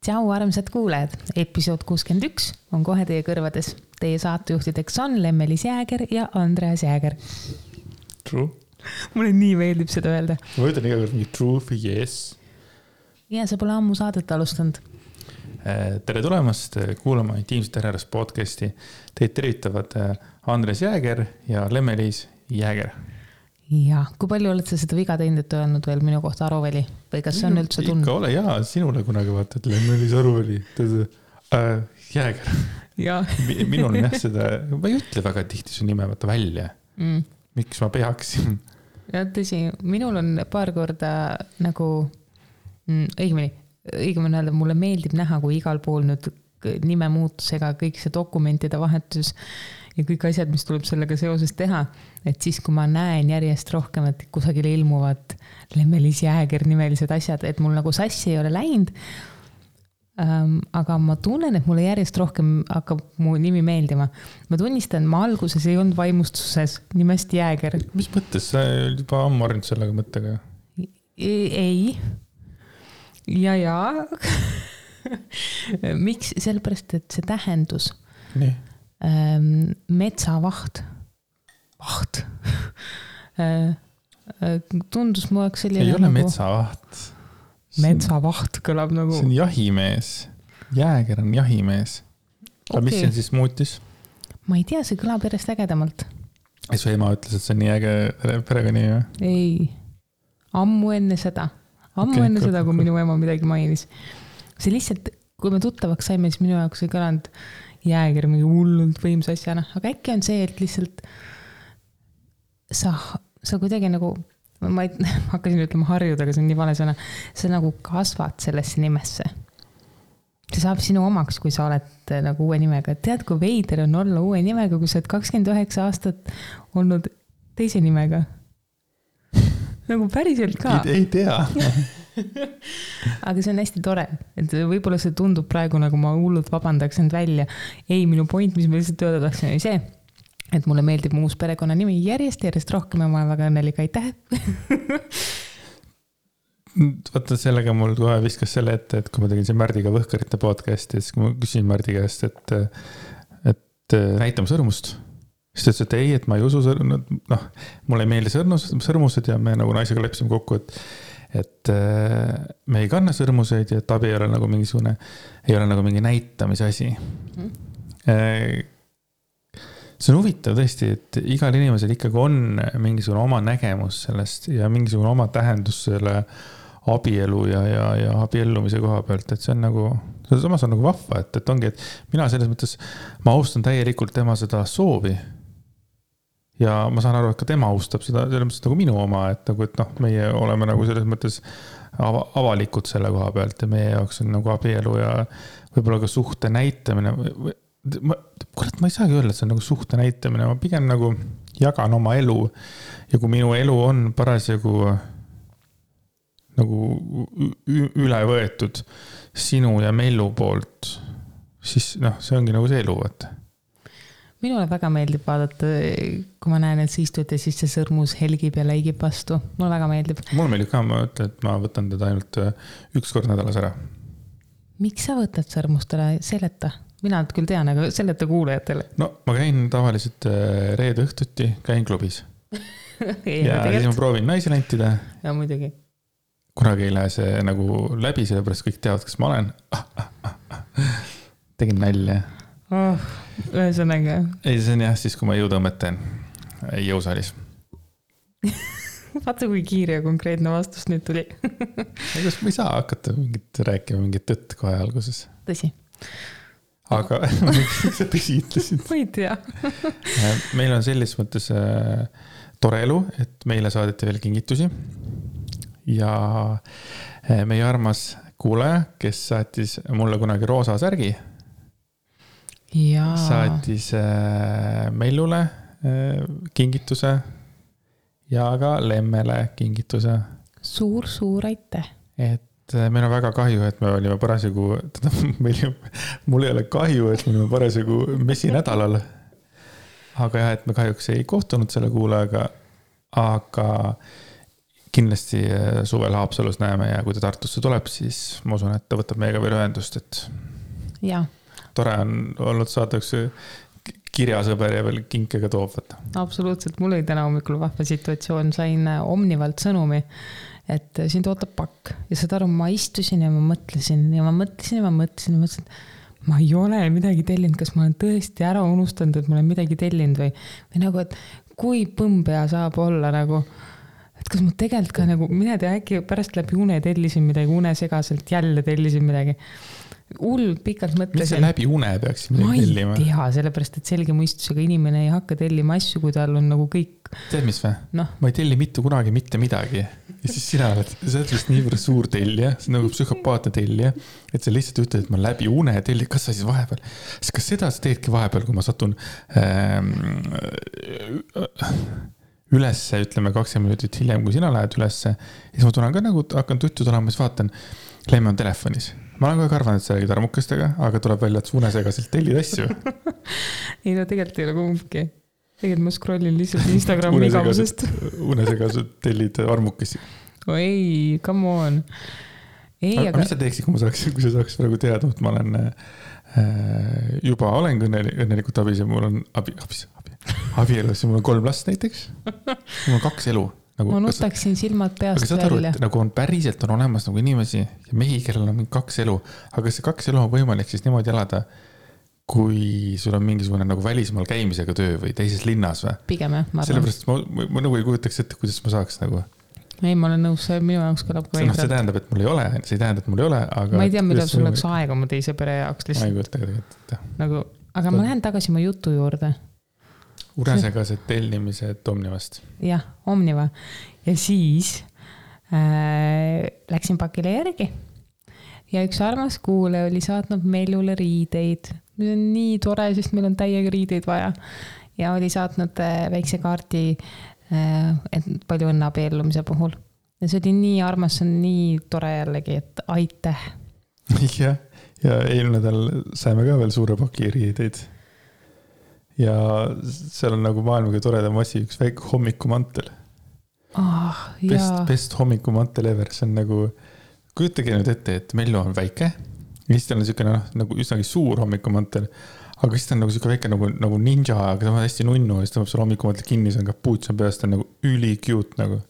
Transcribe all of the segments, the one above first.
Tšau, armsad kuulajad. Episood 61 on kohe teie kõrvades. Teie saatejuhtideks on Lemmelis Jääger ja Andreas Jääger. True. Mulle nii meeldib seda öelda. Ma ütlen iga kord mingi true või yes. Ja sa pole ammu saadet alustanud. Tere tulemast kuulama Intiimsete Herrast podcasti. Teid tervitavad Andreas Jääger ja Lemmelis Jääger. Ja, kui palju oled sa seda viga teinud, et öelnud veel minu kohta Aruveli? Või kas see on üldse tund? Ikka ole, jaa, sinule kunagi vaata, et Lemmelis Aruveli. Jääger. Ja. Minul on jah seda, ma ei ütle väga tihti su nime vaata välja. Miks ma peaksin? Ja tõsi, minul on paar korda nagu, õigemini öelda, mulle meeldib näha, kui igal pool nüüd nime muutusega kõik see dokumentide vahetus ja kõik asjad, mis tuleb sellega seoses teha, et siis kui ma näen järjest rohkem, et kusagil ilmuvad Lemmelis Jääger nimelised asjad, et mul nagu sassi ei ole läinud, aga ma tunnen, et mulle järjest rohkem hakkab mu nimi meeldima. Ma tunnistan, ma alguses ei olnud vaimustuses nimest Jääger. Mis mõttes? Sa juba ammu arnud sellega mõttega? Ei. Ja. Miks? Sellepärast, et see tähendus. Nii. Metsavaht. Vaht. Tundus mu jaoks selline ei ole nagu... metsavaht. Metsavaht kõlab nagu... See on jahimees. Jääger on jahimees. Okay. Mis see siis muutis? Ma ei tea, see kõlab järjest ägedamalt. Ja su ema ütles, et see on nii äge perega nii või? Ei. Ammu enne seda, kui minu ema midagi mainis. See lihtsalt, kui me tuttavaks saime, siis minu jaoks ei kõlanud Jääger mingi hullult võimsa asjana. Aga äkki on see, et lihtsalt sa kuidagi nagu, ma hakkasin ütlema harjuda, aga see on nii vale sõna, sa nagu kasvad sellesse nimesse. See saab sinu omaks, kui sa oled nagu uue nimega. Tead, kui veider on olla uue nimega, kui sa oled 29 aastat olnud teise nimega? Nagu päriselt ka. Ei tea. Aga see on hästi tore, et võib-olla see tundub praegu nagu ma hullult vabandaks end välja. Ei, minu point, mis ma lihtsalt öelda tahtsin, oli see, et mulle meeldib mu uus perekonna nimi järjest rohkem ja ma olen väga õnnelik, aitäh. Vaata, sellega mul kohe viskas selle ette, et kui ma tegin see Märdiga Võhkarite podcasti, siis kui ma küsin Märdi käest, et näitame sõrmust. Siis ta ütles, et ei, et ma ei usu mulle ei meeldi sõrmused ja me nagu naisega leppisime kokku, et me ei kanna sõrmuseid ja et abi ei ole nagu mingi näitamise asi. See on huvitav tõesti, et igal inimesel ikkagi on mingisugune oma nägemus sellest ja mingisugune oma tähendus selle abielu ja abiellumise koha pealt, et see on nagu, samas on nagu vahva, et ongi, et mina selles mõttes, ma austan täielikult tema seda soovi ja ma saan aru, et ka tema austab seda selles mõttes nagu minu oma, et meie oleme nagu selles mõttes avalikud selle koha pealt ja meie jaoks on nagu abielu ja võib-olla ka suhte näitamine. Kurat, ma ei saagi öelda, et see on nagu suhte näitamine, ma pigem nagu jagan oma elu ja kui minu elu on parasjagu nagu üle võetud sinu ja Mellu poolt, siis see ongi nagu see elu, vaata. Minule väga meeldib vaadata, kui ma näen, et sa istud ja siis see sõrmus helgib ja läigib vastu. Mulle väga meeldib. Mulle meeldib ka, ma ütlen, et ma võtan teda ainult üks kord nädalas ära. Miks sa võtad sõrmustele seleta? Mina küll tean, aga seleta kuulajatele. No, ma käin tavaliselt reede õhtuti, käin klubis. ja siis ma proovin naisi lentida. Ja muidugi. Kunagi ei lähe see nagu läbi, sellepärast kõik teavad, kes ma olen. Tegin nälja. Ühesõnaga. Ei, see on jah, siis kui ma jõutõmmet teen jõusaalis. Vaata, kui kiire ja konkreetne vastus nüüd tuli. Kas ma ei saa hakata rääkima mingit tõtt kohe alguses? Tõsi. Aga miks sa tõsi ütlesid? Ma ei tea. Meil on selles mõttes tore elu, et meile saadeti veel kingitusi. Ja meie armas kuulaja, kes saatis mulle kunagi roosa särgi, saatis Mellule kingituse ja ka Lemmele kingituse. Suur aitäh. Et meil on väga kahju, et me olime parasjagu, mul ei ole kahju, et me olime parasjagu messinädalal. Aga jah, et me kahjuks ei kohtunud selle kuulajaga, aga kindlasti suvel Haapsalus näeme ja kui ta Tartusse tuleb, siis ma usun, et ta võtab meiega veel ühendust, et ja. Tore on olnud saada üks kirjasõber ja veel kinkega toob võtta. Absoluutselt, mul oli täna hommikul vahva situatsioon, sain Omnivalt sõnumi, et sind ootab pakk ja saad aru, ma istusin ja ma mõtlesin, ma ei ole midagi tellinud, kas ma olen tõesti ära unustanud, et ma olen midagi tellinud või nagu, et kui põmbea saab olla nagu, et kas ma tegelikult ka nagu, mina tea, äkki pärast läbi une tellisin midagi, unesegaselt jälle tellisin midagi. Pikalt mõtlesin. Mis see läbi une peaks midagi tellima? Ma ei tea, sellepärast, et selge mõistusega inimene ei hakka tellima asju, kui tal on nagu kõik. Tead mis või? No. Ma ei telli mitte kunagi mitte midagi. Ja siis sa oled vist niivõrd suur tellija, see on nagu psühhopaatne tellija, et sa lihtsalt ütled, et ma läbi une telli, kas sa siis vahepeal, kas seda sa teedki vahepeal, kui ma satun ülesse, ütleme 20 minutit hiljem, kui sina lähed ülesse, ja siis ma tulen ka nagu, hakkan tuttud olema, siis vaatan, Leime on telefonis. Ma olen kogu arvanud, et sa räägid armukestega, aga tuleb välja, et unesegaselt tellid asju. Ei, no tegelikult ei ole kumbki. Tegelikult ma scrollin lihtsalt Instagrami igavusest. Unesegaselt tellid armukesi. Ei, come on. Aga mis sa teeksid, kui sa saaks praegu teada, et ma olen juba olen õnnelikult abis ja mul on abielus ja mul on 3 last näiteks. Mul on 2 elu. Nagu, ma nutaksin silmad peast välja. Nagu on päriselt on olemas nagu inimesi ja mehi, kellel on 2 elu. Aga see 2 elu on võimalik siis niimoodi elada, kui sul on mingisugune nagu välismaal käimisega töö või teises linnas või? Pigem jah, ma arvan. Sellepärast ma nagu ei kujutaks ette, kuidas ma saaks nagu. Ei, ma olen nõus, minu jaoks kõlab ka see tähendab, et mul ei ole, see ei tähenda, et mul ei ole, aga... Ma ei tea, mida sul oleks aega oma teise pere jaoks lihtsalt. Ma ei kujuta tegelikult. Nagu, aga ma lähen tagasi oma jutu juurde. Unesegased tellimised Omnivast. Jah, Omniva. Ja siis läksin pakile järgi. Ja üks armas kuule oli saatnud Meljule riideid. Nüüd on nii tore, sest meil on täiega riideid vaja. Ja oli saatnud väikse kaardi, et palju õnne abiellumise puhul. Ja see oli nii armas, see on nii tore jällegi, et aitäh. Ja eelmine nädal saime ka veel suure paki riideid. Ja seal on nagu maailmaga toredam asi, üks väike hommikumantel. Best hommikumantel ever, see on nagu, kujutage nüüd ette, et Mellu on väike, ja siis tal on niisugune nagu üsnagi suur hommikumantel, aga siis ta on nagu niisugune väike nagu ninja, aga ta on hästi nunnu, ja siis ta peab seal hommikumantel kinni, see on kapuuts, on peast, ta on nagu üli cute nagu.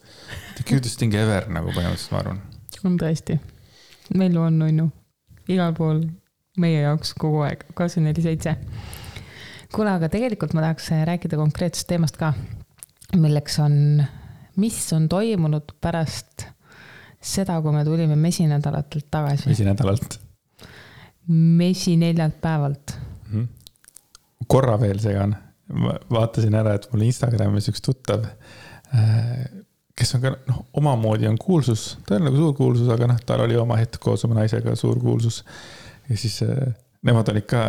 The cutest thing ever nagu põhimõtteliselt, ma arvan. On tõesti. Mellu on nunnu. Igal pool meie jaoks kogu aeg, 24/7. Kuule, aga tegelikult ma tahaks rääkida konkreetsest teemast ka, milleks on, mis on toimunud pärast seda, kui me tulime mesinädalatelt tagasi. Mesi 4 päevalt. Korra veel segan. Vaatasin ära, et mul Instagramis üks tuttav, kes on ka omamoodi on kuulsus, ta on nagu suur kuulsus, aga tal oli oma hetk koos oma naisega suur kuulsus. Ja siis nemad olid ka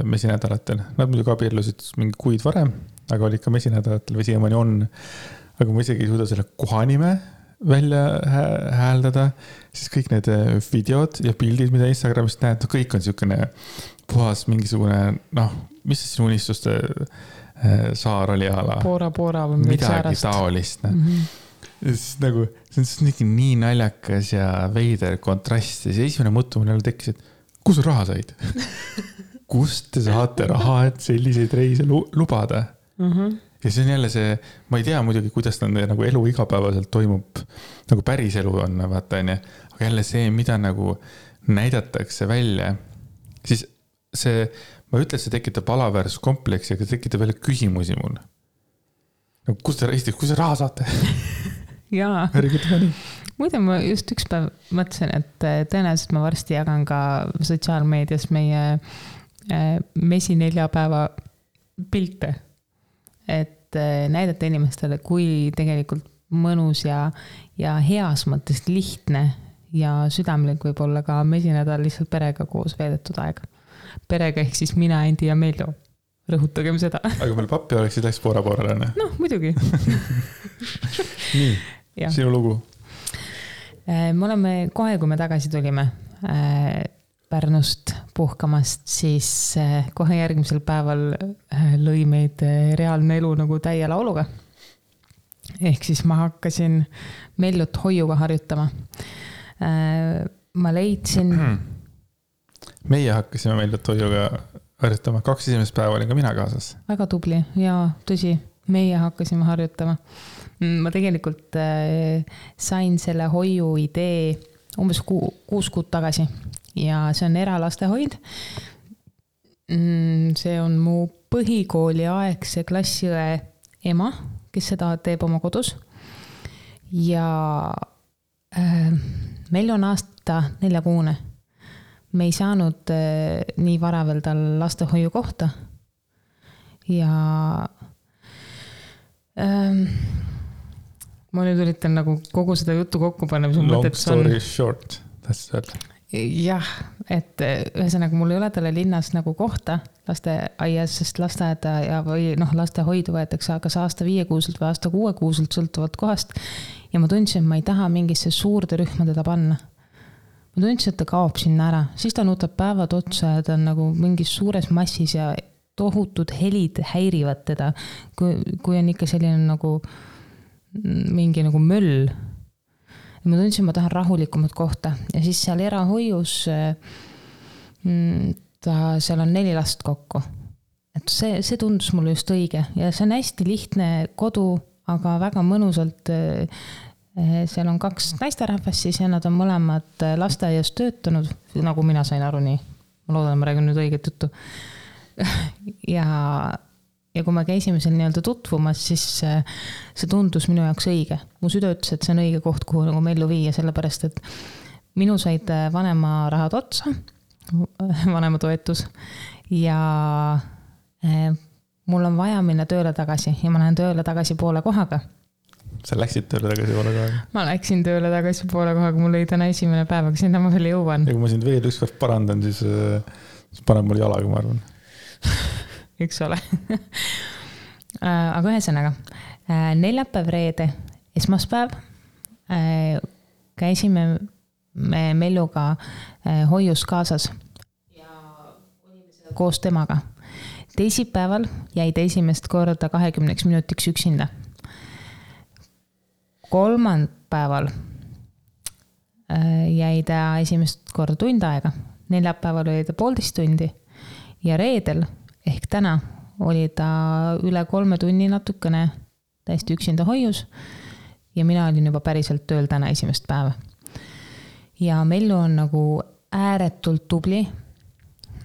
mesinädalatel. Nad muidugi abiellusid mingi kuid varem, aga olid ka mesinädalatel või siiamaani on. Aga ma isegi ei suuda selle kohanime välja hääldada. Siis kõik need videod ja pildid, mida Instagramist näed, kõik on niisugune puhas mingisugune, mis see sinu unistuste saar oli ala? Poora või midagi taolist. Ja siis nagu, see on nii naljakas ja veider kontrast. Ja see esimene mõttu mul tekkis, et kus raha said? Kust te saate raha, et selliseid reise lubada? Ja see on jälle see, ma ei tea muidugi, kuidas nagu elu igapäevaselt toimub, nagu päris elu on, vaata, aga jälle see, mida nagu näidatakse välja, siis see, ma ütlen, see tekitab alaväärsuskompleksi, aga tekitab veel küsimusi mul. Nagu, kus te raha saate? Jaa. Muide, ma just üks päev mõtlesin, et tõenäoliselt ma varsti jagan ka sotsiaalmeedias meie mesi 4 päeva pilte, et näidata inimestele, kui tegelikult mõnus ja heas mõttes lihtne ja südamlik võib olla ka mesinädal lihtsalt perega koos veedetud aeg. Perega ehk siis mina, Endi ja Mello. Rõhutagem seda. Aga meil pappi oleksid läks poora-poorale. Muidugi. Nii, sinu lugu. Me oleme kohe, kui me tagasi tulime Pärnust puhkamast, siis kohe järgmisel päeval lõi meid reaalne elu nagu täie lauluga. ehk siis ma hakkasin Mellut hoiuga harjutama. Ma leidsin... Meie hakkasime Mellut hoiuga harjutama. 2 esimest päeva olin ka mina kaasas. Väga tubli ja tõsi, meie hakkasime harjutama. Ma tegelikult sain selle hoiu idee umbes 6 kuud tagasi ja see on eralastehoid. See on mu põhikooli aegse klassiõe ema, kes seda teeb oma kodus. Ja meil on aasta 4-kuune. Me ei saanud nii vara veel tal lastehoiu kohta. Ja ma nüüd üritan nagu kogu seda juttu kokku panna. Long story short. Jah, et ühesõnaga mul ei ole talle linnas nagu kohta lasteaias, sest lasteaeda või lastehoidu võetakse kas aasta 5-kuuselt või aasta 6-kuuselt sõltuvalt kohast. Ja ma tundsin, et ma ei taha mingisse suurde rühma teda panna. Ma tundsin, et ta kaob sinna ära. Siis ta nuutab päevad otsa ja ta on nagu mingis suures massis ja tohutud helid häirivad teda. Kui on ikka selline nagu mingi nagu möll. Ja ma tundsin, ma tahan rahulikumat kohta. Ja siis seal erahoius seal on 4 last kokku. Et see tundus mulle just õige. Ja see on hästi lihtne kodu, aga väga mõnusalt seal on 2 naisterahvast siis ja nad on mõlemad lasteaias töötanud, nagu mina sain aru nii. Ma loodan, ma räägin nüüd õiget juttu. Ja kui me käisime seal nii-öelda tutvumas, siis see tundus minu jaoks õige. Mu süda ütles, et see on õige koht, kuhu nagu Mellu viia, sellepärast, et minu said vanema rahad otsa, vanema toetus ja mul on vaja minna tööle tagasi ja ma lähen tööle tagasi poole kohaga. Sa läksid tööle tagasi poole kohaga? Ma läksin tööle tagasi poole kohaga, mul oli täna esimene päev, aga sinna ma veel jõuan. Ja kui ma sind veel ükskord parandan, siis paneb mul jalaga, ma arvan. Üks ole. Aga ühesõnaga, neljapäev, reede, esmaspäev käisime me Melluga hoius kaasas ja olime koos temaga. Teisipäeval jäi ta esimest korda 20 minutiks üksinda. Kolmanpäeval jäi ta esimest korda tund aega. Neljapäeval oli ta 1,5 tundi ja reedel ehk täna oli ta üle 3 tunni natukene täiesti üksinda hoius ja mina olin juba päriselt tööl täna esimest päeva. Ja Mellu on nagu ääretult tubli.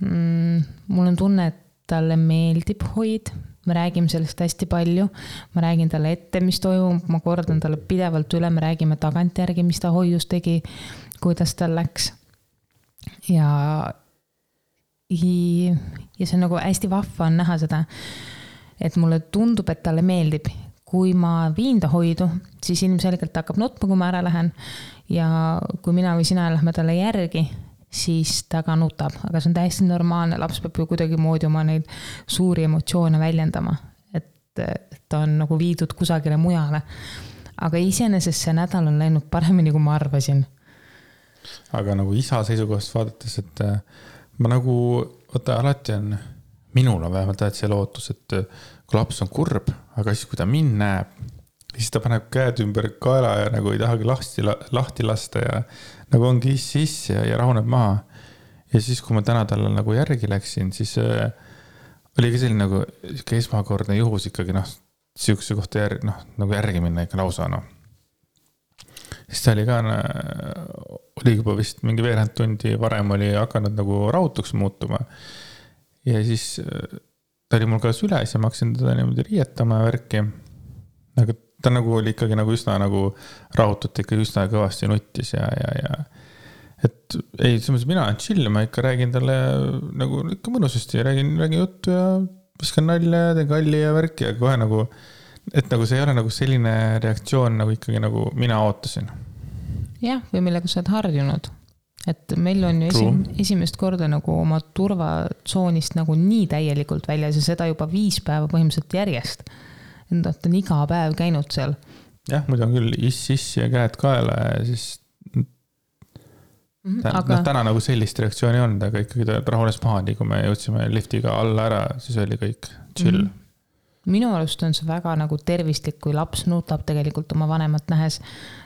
Mul on tunne, et talle meeldib hoid. Me räägime sellest hästi palju. Ma räägin talle ette, mis toimub. Ma kordan talle pidevalt üle. Me räägime tagantjärgi, mis ta hoius tegi, kuidas tal läks. Ja see on nagu hästi vahva on näha seda, et mulle tundub, et talle meeldib. Kui ma viin ta hoidu, siis ilmselgelt hakkab nutma, kui ma ära lähen. Ja kui mina või sina lähme talle järgi, siis ta ka nutab. Aga see on täiesti normaalne. Laps peab ju kuidagi moodi oma neid suuri emotsioone väljendama. Et ta on nagu viidud kusagile mujale. Aga iseenesest see nädal on läinud paremini, kui ma arvasin. Aga nagu isa seisukohast vaadates, et ma nagu, alati on, minul on vähemalt see lootus, et kui laps on kurb, aga siis kui ta mind näeb, siis ta paneb käed ümber kaela ja nagu ei tahagi lahti lasta ja nagu ongi sisse ja rahuneb maha. Ja siis, kui ma täna talle nagu järgi läksin, siis oli ka selline nagu esmakordne juhus ikkagi, sihukese kohta nagu järgi minna ikka lausa, Siis ta oli ka, oli juba vist mingi veerand tundi varem oli hakanud nagu rahutuks muutuma. Ja siis ta oli mul ka süles ja ma hakkasin teda niimoodi riietama ja värki. Aga ta nagu oli ikkagi nagu üsna nagu rahutut, ikka üsna kõvasti nuttis ja et ei, mina olen chill, ma ikka räägin talle nagu ikka mõnusasti, räägin juttu ja viskan nalja ja teen kalli ja värki ja kohe nagu et nagu see ei ole nagu selline reaktsioon nagu ikkagi nagu mina ootasin. Jah, või millega sa oled harjunud. Et meil on ju esimest korda nagu oma turvatsoonist nagu nii täielikult väljas ja seda juba 5 päeva põhimõtteliselt järjest. Ta on iga päev käinud seal. Jah, muidu on küll iss ja käed kaela ja siis täna nagu sellist reaktsiooni on, aga ikkagi ta rahunes maha, nii kui me jõudsime liftiga alla ära, siis oli kõik chill. minu arust on see väga nagu tervislik, kui laps nutab tegelikult oma vanemat nähes,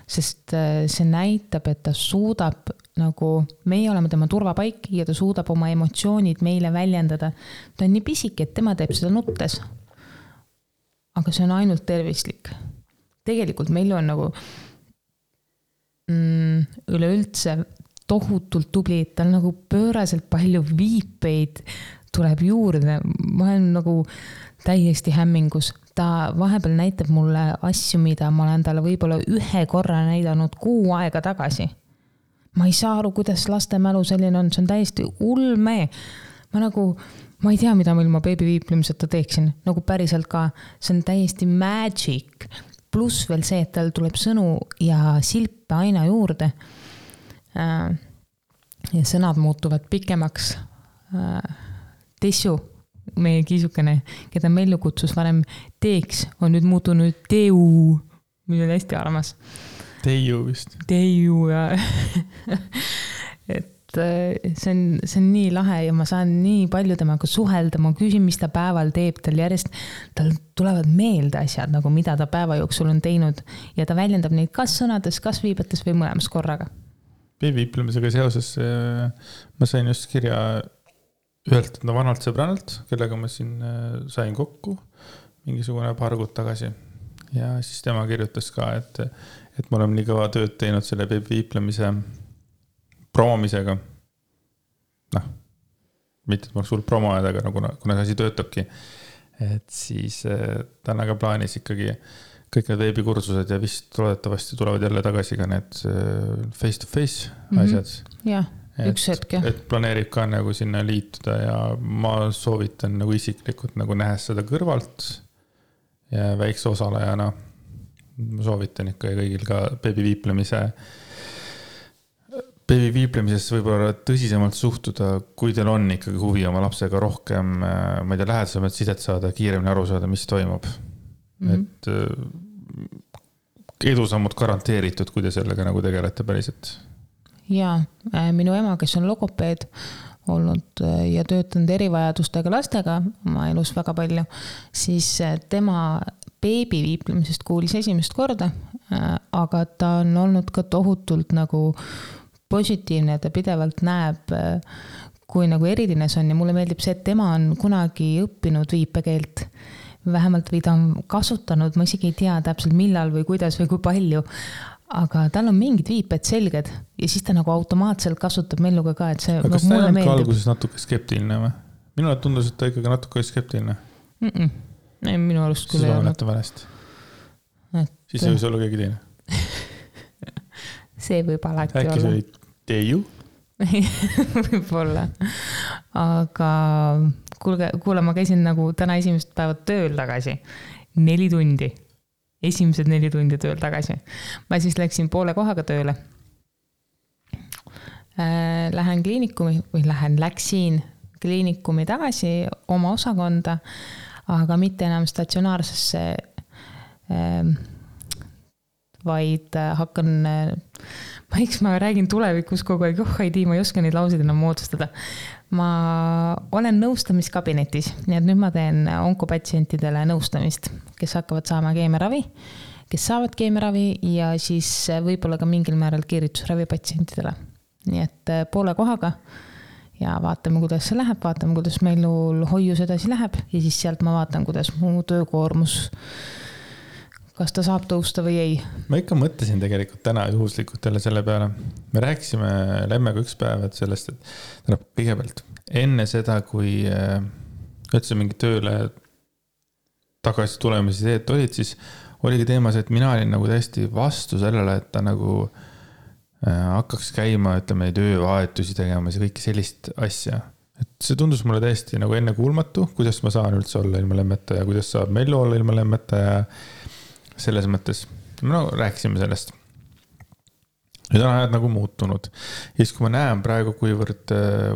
sest see näitab, et ta suudab nagu, meie oleme tema turvapaik ja ta suudab oma emotsioonid meile väljendada. Ta on nii pisike, et tema teeb seda nuttes. Aga see on ainult tervislik. Tegelikult meil on nagu üleüldse tohutult tubli, tal nagu pööraselt palju viipeid tuleb juurde. Ma olen nagu täiesti hämmingus. Ta vahepeal näitab mulle asju, mida ma olen talle võib-olla 1 korra näidanud 6 aega tagasi. Ma ei saa aru, kuidas laste mälu selline on. See on täiesti ulme. Ma ei tea, mida ma ilma beebi viiplemiseta teeksin. Nagu päriselt ka. See on täiesti magic. Plus veel see, et tal tuleb sõnu ja silpe aina juurde. Ja sõnad muutuvad pikemaks. Tessu, meie kiisukene, keda Mellu kutsus varem teeks, on nüüd muutunud teu, mis on hästi armas. Teiu vist. Teiu ja et see on nii lahe ja ma saan nii palju temaga suhelda, ma küsin, mis ta päeval teeb, tal tulevad meelde asjad, nagu mida ta päeva jooksul on teinud ja ta väljendab neid kas sõnades, kas viibetes või mõlemas korraga. Beebiviiplemisega seoses ma sain just kirja ühelt vanalt sõbrannalt, kellega ma siin sain kokku mingisugune paar kuud tagasi. Ja siis tema kirjutas ka, et me oleme nii kõva tööd teinud selle beebiviiplemise promomisega. Mitte, et ma oleks suur promoajad, aga kuna see asi töötabki, et siis ta on aga plaanis ikkagi kõik need veebikursused ja vist loodetavasti tulevad jälle tagasi ka need face-to-face asjad. Jah, üks hetk. Et planeerib ka nagu sinna liituda ja ma soovitan nagu isiklikult nagu nähes seda kõrvalt ja väikse osalejana. Ma soovitan ikka kõigil ka beebiviiplemisesse võib-olla tõsisemalt suhtuda, kui teil on ikkagi huvi oma lapsega rohkem, ma ei tea, lähedasemalt sidet saada, kiiremini aru saada, mis toimub. Et edusammud garanteeritud, kui te sellega nagu tegelete päriselt. Jaa, minu ema, kes on logopeed olnud ja töötanud erivajadustega lastega oma elus väga palju, siis tema beebiviiplemisest kuulis esimest korda, aga ta on olnud ka tohutult nagu positiivne, ta pidevalt näeb, kui nagu eridines on ja mulle meeldib see, et tema on kunagi õppinud viipekeelt vähemalt või ta on kasutanud, ma isegi ei tea täpselt millal või kuidas või kui palju, aga tal on mingid viiped selged ja siis ta nagu automaatselt kasutab Melluga ka, et see aga kas ta ei olnud ka alguses natuke skeptiline või? Minule tundus, et ta ikkagi natuke skeptiline. Ei, minu arust küll ei olnud. Siis ei võis olla keegi teine. See võib alati olla. Äkki see oli teiu? Võib-olla. Aga kuule, ma käisin nagu täna esimest päeva tööl tagasi. 4 tundi. Esimesed 4 tundi tööl tagasi. Ma siis läksin poole kohaga tööle. Läksin kliinikumi tagasi oma osakonda, aga mitte enam statsionaarsesse, vaid hakkan... ma räägin tulevikus kogu aeg, ma ei oska neid lauseid enam moodustada. Ma olen nõustamiskabinetis, nii et nüüd ma teen onkopatsientidele nõustamist, kes hakkavad saama keemiaravi, kes saavad keemiaravi ja siis võib-olla ka mingil määral kiiritusravi patsientidele. Nii et poole kohaga ja vaatame, kuidas see läheb, vaatame, kuidas meil hoius edasi läheb ja siis sealt ma vaatan, kuidas mu töökoormus kas ta saab tõusta või ei. Ma ikka mõtlesin tegelikult täna juhuslikult jälle selle peale. Me rääkisime Lemmega üks päev sellest, et kõigepealt enne seda, kui üldse mingi tööle tagasi tulemise teed olid, siis oligi teemas, et mina olin nagu täiesti vastu sellele, et ta nagu hakkaks käima, ütleme, töövahetusi tegemas ja kõike sellist asja. Et see tundus mulle täiesti nagu enne kuulmatu, kuidas ma saan üldse olla ilma Lemmeta ja kuidas saab Mellu olla ilma Lemmeta ja selles mõttes, me rääkisime sellest. Nüüd on ajad nagu muutunud. Ja siis kui ma näen praegu, kuivõrd,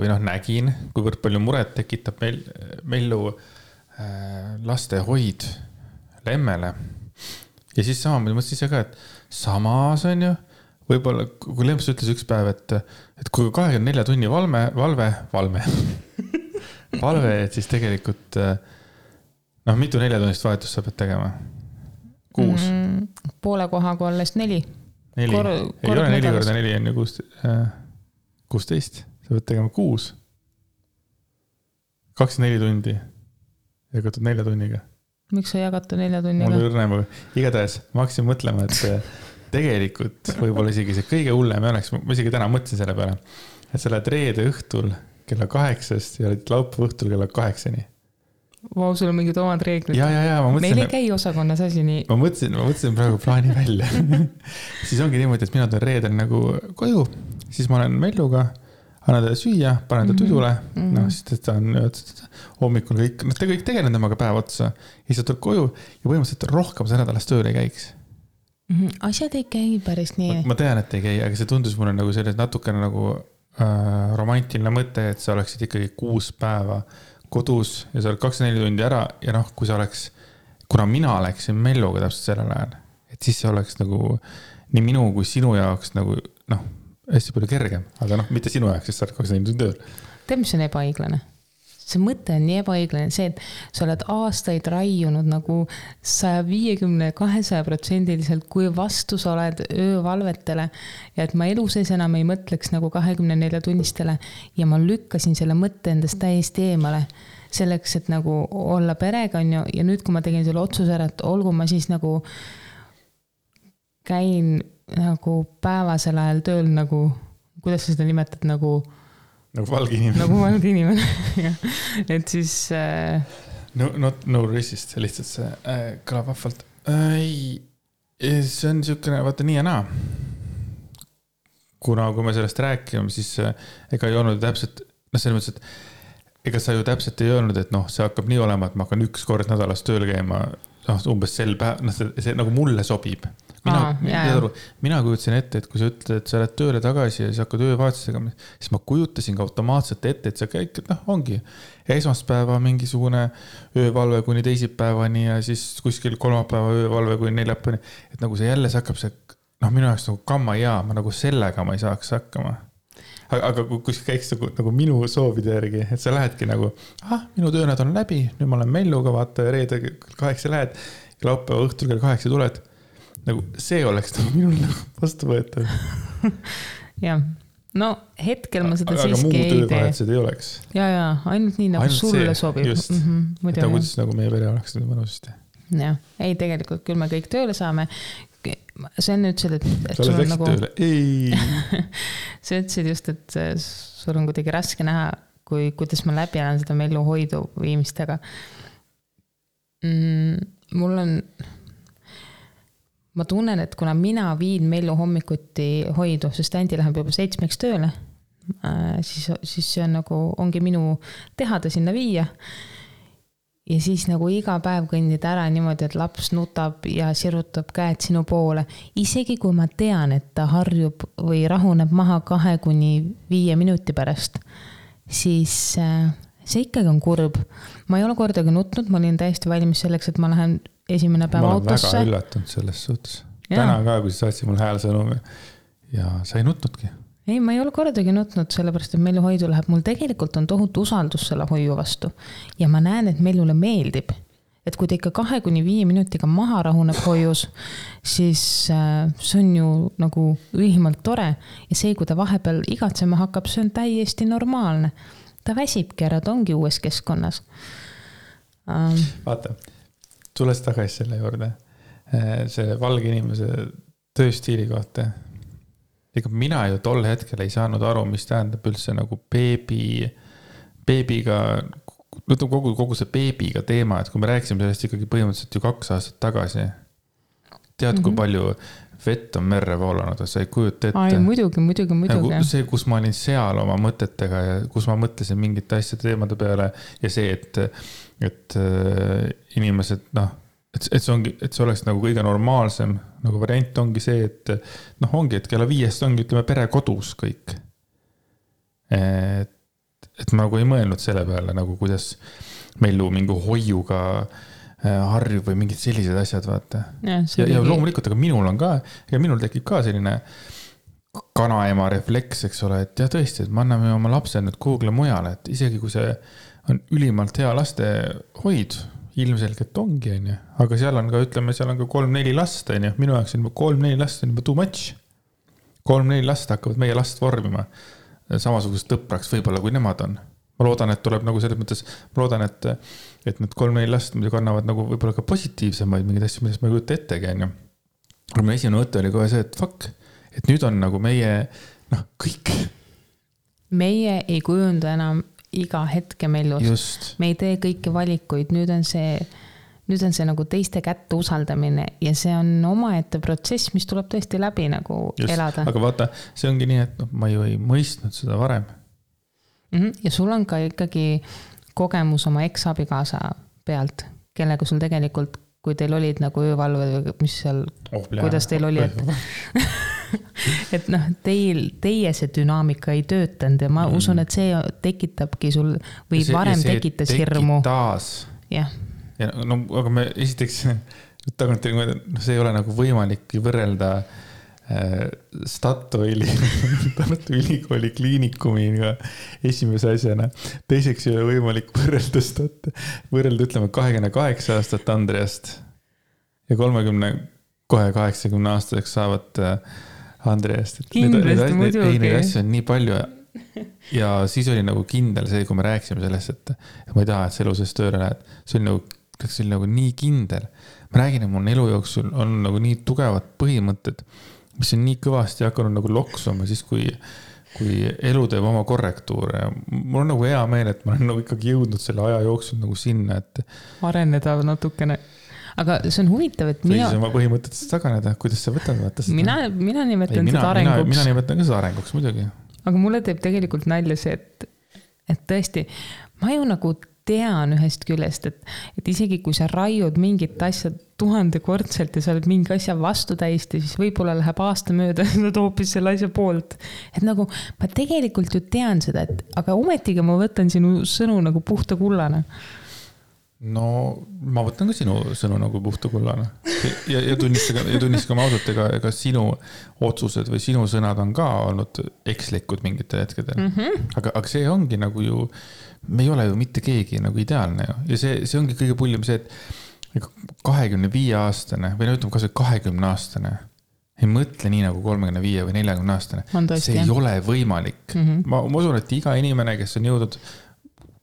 või nägin, kuivõrd palju muret tekitab Mellu laste hoid Lemmele. Ja siis sama, ma mõtlesin ise ka, et samas on ju, võib-olla, kui Lemps ütles üks päev, et kui 24 tunni valve, et siis tegelikult noh, mitu 4-tunnist vahetust sa pead tegema? 6? Poole kohaga alles 4. 4? Ei ole 4 korda 4 on ju 16. Sa pead tegema 6. 24 tundi. Jagatud 4 tunniga. Miks sa jagata 4 tunniga? Mul õrnem, igatahes ma hakkasin mõtlema, et tegelikult võib-olla isegi see kõige hullem oleks, ma isegi täna mõtlesin selle peale, et sa lähed reede õhtul kella 8-st ja oled laupäeva õhtul kella 8-ni. Vau, sul on mingid omad reeglid. Ja, ma mõtlesin... Meil ei käi osakonnas asi nii. Ma mõtlesin praegu plaani välja. Siis ongi niimoodi, et mina tulen reedel nagu koju, siis ma olen Melluga, annan talle süüa, panen ta tudule, no siis ta on hommikul kõik, te kõik tegelen temaga päev otsa, ja siis ta tuleb koju ja põhimõtteliselt rohkem see nädalas tööle ei käiks. Asjad ei käi päris nii. Ma tean, et ei käi, aga see tundus mulle nagu selles natukene nagu romantiline mõte, et sa oleksid ikkagi 6 päeva kodus ja sa oled 24 tundi ära ja noh, kui sa oleks, kuna mina oleksin Melluga täpselt sellel ajal, et siis see oleks nagu nii minu kui sinu jaoks nagu noh, hästi palju kergem, aga noh, mitte sinu jaoks, sest sa oled 24 tundi tööl. Tead, mis on ebaõiglane? See mõte on nii ebaõiglane, see, et sa oled aastaid raiunud nagu 150-200%, kui vastu sa oled öövalvetele ja et ma elu sees enam ei mõtleks nagu 24 tunnistele ja ma lükkasin selle mõtte endast täiesti eemale selleks, et nagu olla perega on ju, ja nüüd, kui ma tegin selle otsuse ära, et olgu ma siis nagu käin nagu päevasel ajal tööl nagu, kuidas sa seda nimetad, nagu valge inimene. Nagu valge inimene. Et siis... No racist, lihtsalt see kõlab vahvalt. See on niisugune, vaata nii ja naa. Kuna kui me sellest rääkime, siis ega ei olnud täpselt, selles mõttes, et ega sa ju täpselt ei öelnud, et noh, see hakkab nii olema, et ma hakkan 1 kord nädalas tööl käima, umbes sel päev, see nagu mulle sobib. Mina kujutasin ette, et kui sa ütled, et sa oled tööle tagasi ja siis hakkad öövaatusega, siis ma kujutasin ka automaatselt ette, et sa käid, ongi esmaspäeva mingisugune öövalve kuni teisipäevani ja siis kuskil kolmapäeva öövalve kuni neljapäevani, et nagu see jälle hakkab see, minu jaoks nagu kamma ja ma nagu sellega ma ei saaks hakkama. Aga kui sa käiks nagu minu soovide järgi, et sa lähedki nagu, minu töönäd on läbi, nüüd ma olen Melluga, vaata ja reede 8 lähed, laupäeva õhtul kell 8 tuled. Nagu see oleks nagu minul nagu vastu võetav. Jah, no hetkel ma seda aga siiski ei tee. Aga muu töövahetused ei oleks. Ja, ainult nii nagu ainult sulle see, sobib. Just, et kuidas nagu meie pere oleks nüüd mõnusti. Jah, ei tegelikult küll me kõik tööle saame. See on nüüd see, et sa oled läksid nagu... tööle? Ei! Sa ütlesid just, et sul on kuidagi raske näha, kuidas ma läbi olen seda Mellu hoidu viimistega. Mul on... Ma tunnen, et kuna mina viin Mellu hommikuti hoidu, sest Andi läheb juba 7 tööle, siis see on nagu, ongi minu teha ta sinna viia. Ja siis nagu iga päev kõndid ära niimoodi, et laps nutab ja sirutab käed sinu poole. Isegi kui ma tean, et ta harjub või rahuneb maha 2-5 minuti pärast, siis see ikkagi on kurb. Ma ei ole kordagi nutnud, ma olin täiesti valmis selleks, et ma lähen esimene päev autosse. Ma olen väga üllatunud selles suhtes. Täna ka, kui sa saatsid mul häälsõnumi ja sa ei nutnudki. Ei, ma ei ole kordagi nutnud, sellepärast, et Mellu hoidu läheb. Mul tegelikult on tohutu usaldus selle hoiu vastu. Ja ma näen, et Mellule meeldib. Et kui ta ikka 2-5 minutiga maha rahuneb hoius, siis see on ju nagu ülimalt tore. Ja see, kui ta vahepeal igatsema hakkab, see on täiesti normaalne. Ta väsibki ära, ta ongi uues keskkonnas. Vaata. Tules tagasi selle juurde, see valge inimese tööstiili kohta. Ega mina ju tol hetkel ei saanud aru, mis tähendab üldse nagu beebiga, kogu see beebiga teema, et kui me rääkisime sellest ikkagi põhimõtteliselt ju 2 aastat tagasi. Tead, kui palju vett on merre voolanud, sa ei kujuta ette. Ai, muidugi. Nagu see, kus ma olin seal oma mõtetega ja kus ma mõtlesin mingite asjade teemade peale ja see, et inimesed, et see oleks nagu kõige normaalsem nagu variant ongi see, et ongi, et kella 5 ongi, ütleme, pere kodus kõik. Et ma nagu ei mõelnud selle peale, nagu kuidas Mellu mingi hoiuga harjub või mingid sellised asjad, vaata. Ja loomulikult, aga minul on ka, ja minul tekib ka selline kanaema refleks, eks ole, et ja tõesti, et me anname oma lapse nüüd kuhugle mujale, et isegi kui see on ülimalt hea laste hoid, ilmselgelt ongi, on ju. Aga seal on ka, ütleme, seal on ka 3-4 last, on ju. Minu jaoks on juba 3-4 last on juba too much. 3-4 last hakkavad meie last vormima. Samasugust tõpraks võib-olla, kui nemad on. Ma loodan, et tuleb nagu selles mõttes, ma loodan, et need 3-4 last muidugi annavad nagu võib-olla ka positiivsemaid mingeid asju, millest ma ei kujuta ettegi, on ju. Aga mu esimene mõte oli kohe see, et fuck, et nüüd on nagu meie, kõik. Meie ei kujunda enam iga hetke mellust. Just. Me ei tee kõiki valikuid, nüüd on see nagu teiste kätte usaldamine ja see on omaette protsess, mis tuleb tõesti läbi nagu just. Elada. Aga vaata, see ongi nii, et ma ju ei mõistnud seda varem. Ja sul on ka ikkagi kogemus oma ex-abikaasa pealt, kellega sul tegelikult, kui teil olid nagu öövalved või mis seal, kuidas teil oli, et teie see dünaamika ei töötanud ja ma usun, et see tekitabki sul või varem tekitas hirmu. Ja, aga me esiteks tagantjärgi, see ei ole nagu võimalik võrrelda Statoili Tartu Ülikooli kliinikumiga esimese asjana. Teiseks ei ole võimalik võrrelda ütleme 28 aastat Andreast ja 80 aastaseks saavad Andreast. Kindlasti muidugi. Neid asju on nii palju ja siis oli nagu kindel see, kui me rääkisime sellest, et ma ei taha, et see elu sellest tööle lähed. See oli nagu nii kindel. Ma räägin, et mul elu jooksul on nagu nii tugevad põhimõtted, mis on nii kõvasti hakanud nagu loksuma siis, kui elu teeb oma korrektuure. Mul on nagu hea meel, et ma olen nagu ikkagi jõudnud selle aja jooksul nagu sinna, et areneda natukene. Aga see on huvitav, et mina oma põhimõtetest taganeda, kuidas sa võtad vaata seda? Mina nimetan seda arenguks. Mina nimetan ka seda arenguks muidugi. Aga mulle teeb tegelikult nalja see, et tõesti, ma ju nagu tean ühest küljest, et isegi kui sa raiud mingit asja 1000-kordselt ja sa oled mingi asja vastu täiesti, siis võib-olla läheb aasta mööda ja sa hoopis selle asja poolt. Et nagu ma tegelikult ju tean seda, aga ometigi ma võtan sinu sõnu nagu puhta kullana. No ma võtan ka sinu sõnu nagu puhta kullana. Ja tunnistagame ausalt, ega sinu otsused või sinu sõnad on ka olnud ekslikud mingitel hetkedel. Aga see ongi nagu ju me ei ole ju mitte keegi nagu ideaalne ju. Ja see ongi kõige pullim see, et 25-aastane või ütleme kas 20-aastane ei mõtle nii nagu 35 või 40-aastane. See ei ole võimalik. Ma usun, et iga inimene, kes on jõudnud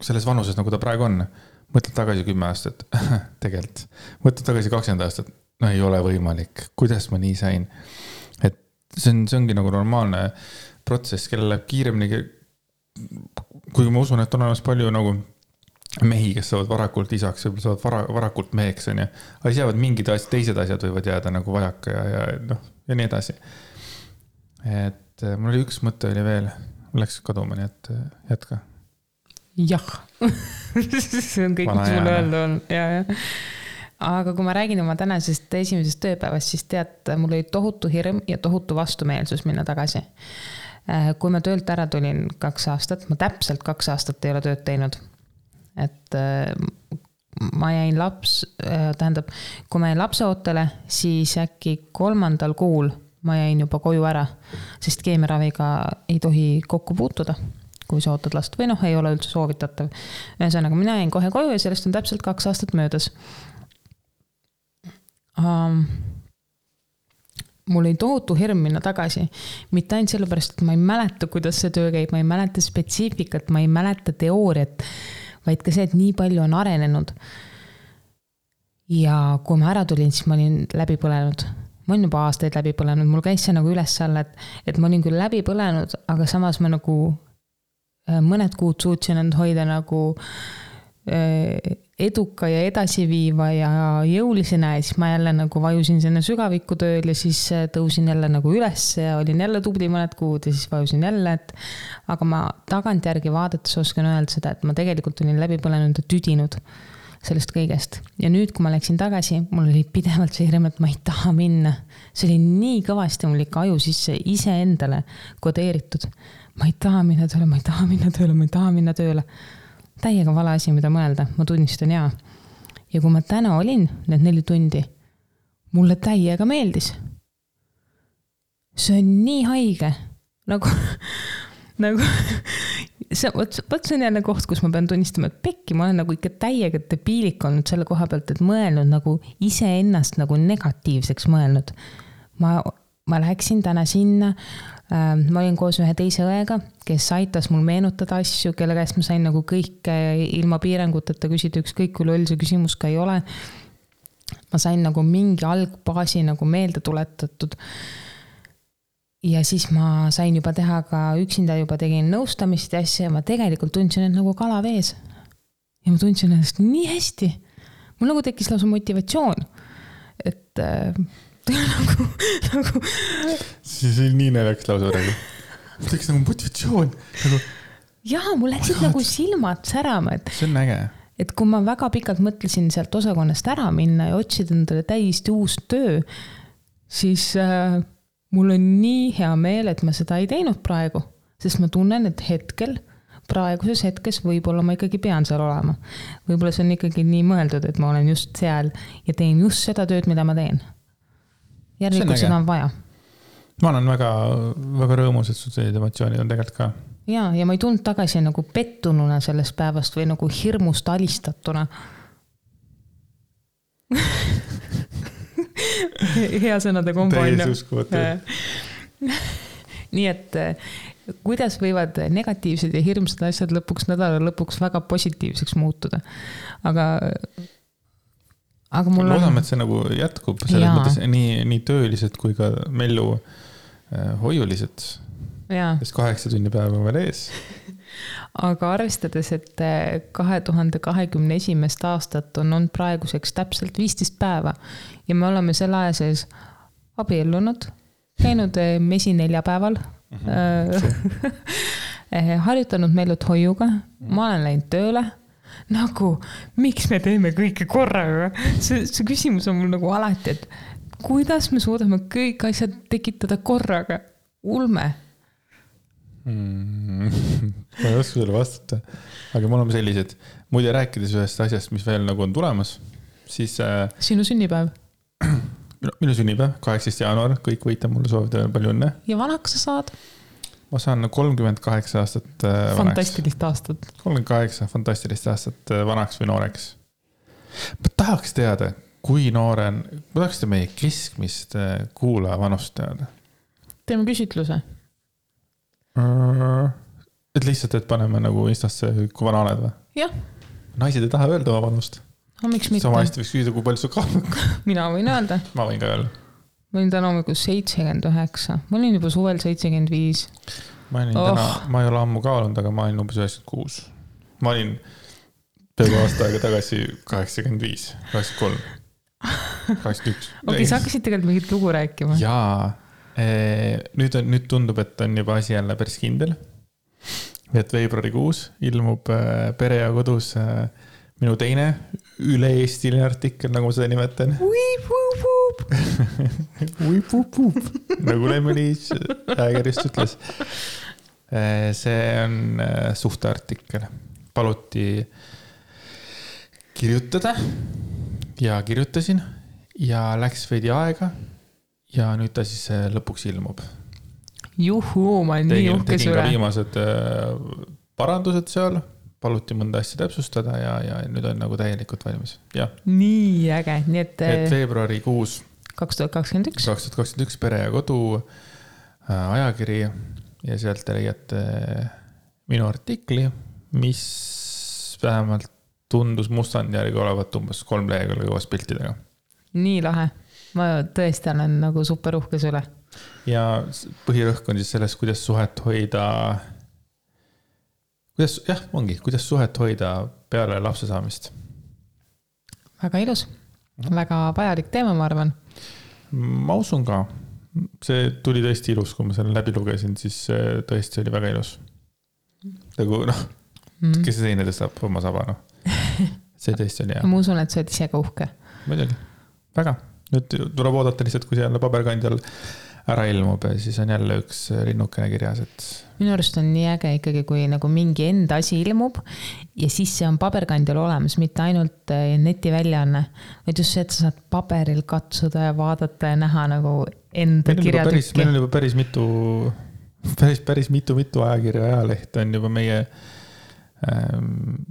selles vanuses, nagu ta praegu on, mõtled tagasi 10 aastat, tegelikult. Mõtled tagasi 20 aastat, no ei ole võimalik. Kuidas ma nii sain? Et see ongi nagu normaalne protsess, kellel läheb kiiremini, kui ma usun, et on olemas palju nagu mehi, kes saavad varakult isaks, võib-olla saavad varakult meheks, on ju. Aga siis jäävad mingid teised asjad võivad jääda nagu vajaka ja nii edasi. Et mul oli üks mõte oli veel, mul läks kaduma, nii et jätka. Jah, see on kõik, mis mul öelda on. Ja. Aga kui ma räägin oma tänasest esimesest tööpäevast, siis tead, mul oli tohutu hirm ja tohutu vastumeelsus minna tagasi. Kui ma töölt ära tulin 2 aastat, ma täpselt 2 aastat ei ole tööd teinud. Et ma jäin kui ma jäin lapseootele, siis äkki 3. kuul ma jäin juba koju ära, sest keemiaraviga ei tohi kokku puutuda, kui sa ootad last või ei ole üldse soovitatav. Ühesõnaga, mina jäin kohe koju ja sellest on täpselt 2 aastat möödas. Mul oli tohutu hirm minna tagasi. Mitte ainult sellepärast, et ma ei mäleta, kuidas see töö käib, ma ei mäleta spetsiifikat, ma ei mäleta teooriat, vaid ka see, et nii palju on arenenud. Ja kui ma ära tulin, siis ma olin läbi põlenud. Ma olin juba aastaid läbi põlenud. Mul käis see nagu üles alla, et ma olin küll läbi põlenud, aga samas ma nagu mõned kuud suutsin end hoida nagu eduka ja edasiviiva ja jõulisena ja siis ma jälle nagu vajusin sinna sügavikku tööl ja siis tõusin jälle nagu üles ja olin jälle tubli mõned kuud ja siis vajusin jälle, aga ma tagantjärgi vaadates oskan öelda seda, et ma tegelikult olin läbi põlenud ja tüdinud sellest kõigest. Ja nüüd, kui ma läksin tagasi, mul oli pidevalt see hirm, et ma ei taha minna. See oli nii kõvasti mul ikka aju sisse iseendale kodeeritud. Ma ei taha minna tööle, ma ei taha minna tööle, ma ei taha minna tööle. Täiega vale asi, mida mõelda, ma tunnistan jaa. Ja kui ma täna olin need 4 tundi, mulle täiega meeldis. See on nii haige. Nagu Võt see on jälle koht, kus ma pean tunnistama, et pekki, ma olen nagu ikka täiega debiilik olnud selle koha pealt, et mõelnud nagu iseennast nagu negatiivseks mõelnud. Ma läksin täna sinna, ma olin koos ühe teise õega, kes aitas mul meenutada asju, kelle käest ma sain nagu kõike ilma piiranguteta küsida, ükskõik kui loll see küsimus ka ei ole. Ma sain nagu mingi algbaasi nagu meelde tuletatud. Ja siis ma sain juba teha ka üksinda juba tegin nõustamist ja asja ja ma tegelikult tundsin end nagu kala vees. Ja ma tundsin ennast nii hästi. Mul nagu tekkis lausa motivatsioon. Et nagu... Siis oli nii naljakas lausa praegu. Mul tekkis nagu motivatsioon. Nagu... Jaa, mul läksid nagu silmad särama. See on äge. Et kui ma väga pikalt mõtlesin sealt osakonnast ära minna ja otsida endale täiesti uus töö, siis... mul on nii hea meel, et ma seda ei teinud praegu, sest ma tunnen, et praeguses hetkes võib-olla ma ikkagi pean seal olema. Võib-olla see on ikkagi nii mõeldud, et ma olen just seal ja teen just seda tööd, mida ma teen. Järelikult seda on vaja. Ma olen väga, väga rõõmus, et sul sellised emotsioonid on tegelikult ka. Ja ma ei tundnud tagasi nagu pettununa sellest päevast või nagu hirmust alistatuna. Hea sõnade kombo. Täies uskumatu. Nii et kuidas võivad negatiivsed ja hirmsad asjad nädala lõpuks väga positiivseks muutuda. Aga mul on... Loodame, et see nagu jätkub selles mõttes nii töölised kui ka mellu hoiulised. Sest 8 tunni päeva on veel ees. Aga arvestades, et 2021. aastat on praeguseks täpselt 15 päeva ja me oleme selle aja sees abiellunud, käinud mesi 4 päeval, harjutanud Mellut hoiuga, ma olen läinud tööle, nagu miks me teeme kõike korraga? See küsimus on mul nagu alati, et kuidas me suudame kõik asjad tekitada korraga? Ulme. Ma ei oska sulle vastata, aga mul on sellised, muide rääkides ühest asjast, mis veel nagu on tulemas, siis... Sinu sünnipäev? Minu sünnipäev, 18. jaanuar, kõik võite mulle soovida palju õnne. Ja vanaks sa saad? Ma saan 38 aastat vanaks. Fantastilist aastat. 38 fantastilist aastat vanaks või nooreks. Ma tahaks teada, kui nooren, ma tahaks teada meie keskmist kuulaja vanust teada. Teeme küsitluse. Et lihtsalt, et paneme nagu Instasse, kui vana oled või? Jah. Naised ei taha öelda oma vanust. No, miks mitte? Sama hästi võiks küsida, kui palju su kaalub. Mina võin öelda. Ma võin ka öelda. Ma olin täna hommikul 79. Ma olin juba suvel 75. Ma ei ole ammu kaalunud, aga ma olin umbes 96. Ma olin peaaegu aasta aega tagasi 85, 83, 81. Okei, sa hakkasid tegelikult mingit lugu rääkima. Jaa. Nüüd tundub, et on juba asi jälle päris kindel. Et veebruarikuus ilmub Pere ja kodus minu teine üle-eestiline artikkel, nagu ma seda nimetan. Nagu Lemmelis ägerist ütles. See on suhteartikkel. Paluti kirjutada ja kirjutasin ja läks veidi aega. Ja nüüd ta siis lõpuks ilmub. Juhuu, ma olen nii uhke tegin ka viimased parandused seal, paluti mõnda asja täpsustada ja nüüd on nagu täielikult valmis. Ja. Nii äge. Nii et veebruarikuus 2021 Pere ja kodu ajakiri ja sealt te leiate minu artikli, mis vähemalt tundus mustand järgi olevat umbes 3 lehekülge koos piltidega. Nii lahe. Ma tõesti olen nagu super uhkes üle. Ja põhirõhk on siis selles, kuidas suhet hoida, kuidas suhet hoida peale lapse saamist. Väga ilus. Väga vajalik teema, ma arvan. Ma usun ka. See tuli tõesti ilus, kui ma selle läbi lugesin, siis tõesti oli väga ilus. Nagu kes see teine tõstab oma saba, See tõesti oli hea. Ma usun, et sa oled ise ka uhke. Muidugi. Väga. Nüüd tuleb oodata lihtsalt, kui see jälle paberkandjal ära ilmub ja siis on jälle üks linnukene kirjas. Minu arust on nii äge ikkagi, kui nagu mingi enda asi ilmub ja siis see on paberkandjal olemas, mitte ainult neti väljaanne, vaid just see, et sa saad paberil katsuda ja vaadata ja näha nagu enda kirjatükki. Meil on juba päris mitu päris mitu ajakirja ajaleht on juba meie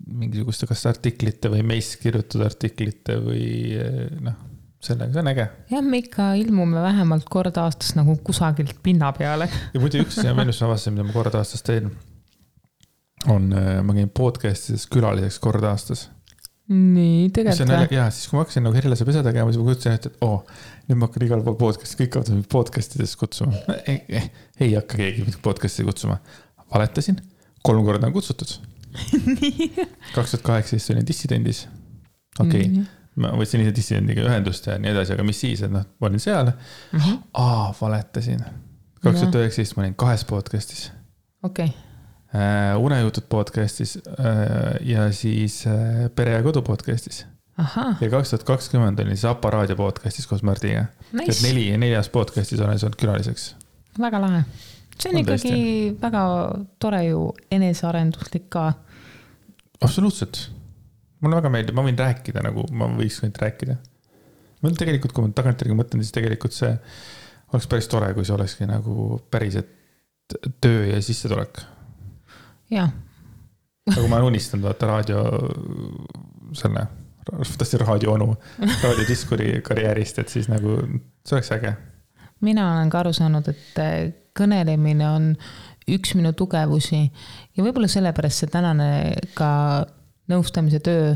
mingisuguste kas artiklite või meist kirjutatud artiklite või sellega, see on äge. Jah, me ikka ilmume vähemalt kord aastas nagu kusagilt pinna peale. Ja muidu üks ja veel, mis ma avastasin, mida ma kord aastas teen, on, ma käin podcastides külaliseks kord aastas. Nii, tegelikult. Ja siis kui ma hakkasin nagu Herilase pesa tegema, siis ma kutsusin, et nüüd ma hakkan igal pool podcasti, kõik hakkavad podcastides kutsuma. Ei hakka keegi podcasti kutsuma. Valetasin, 3 korda on kutsutud. 2018 olin dissidendis. Okei. Ma võtsin ise dissidendiga ühendust ja nii edasi, aga mis siis, et ma olin seal. Valetasin. 2019 ma olin 2 podcastis. Okei. Unejutud podcastis ja siis Pere ja kodu podcastis. Aha. Ja 2020 olin siis Apa raadio podcastis koos Mardiga. Nice. 4 podcastis olen saanud külaliseks. Väga lahe. See on ikkagi väga tore ju enesearenduslik ka. Absoluutselt. Mulle väga meeldib, ma võin rääkida nagu ma võiks võinud rääkida. Ma tegelikult, kui ma tagantjärgi mõtlen, siis tegelikult see oleks päris tore, kui see olekski nagu päriselt töö ja sissetulek. Jah. Nagu ma olen unistanud vaata raadio selle, raadio onu, raadiodiskuri karjäärist, et siis nagu see oleks äge. Mina olen ka aru saanud, et kõnelemine on üks minu tugevusi ja võib-olla sellepärast see tänane ka nõustamise töö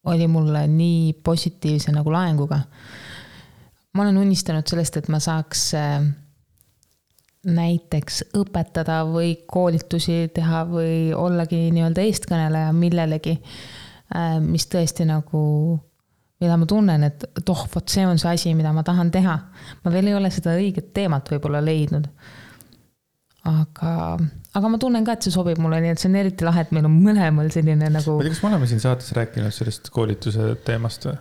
oli mulle nii positiivse nagu laenguga. Ma olen unistanud sellest, et ma saaks näiteks õpetada või koolitusi teha või ollagi nii-öelda eestkõneleja millelegi, mis tõesti nagu, mida ma tunnen, et vot see on see asi, mida ma tahan teha. Ma veel ei ole seda õiget teemat võib-olla leidnud. Aga ma tunnen ka, et see sobib mulle, nii et see on eriti lahe, et meil on mõlemal selline nagu... Ma tea, kas me oleme siin saates rääkinud sellest koolituse teemast või?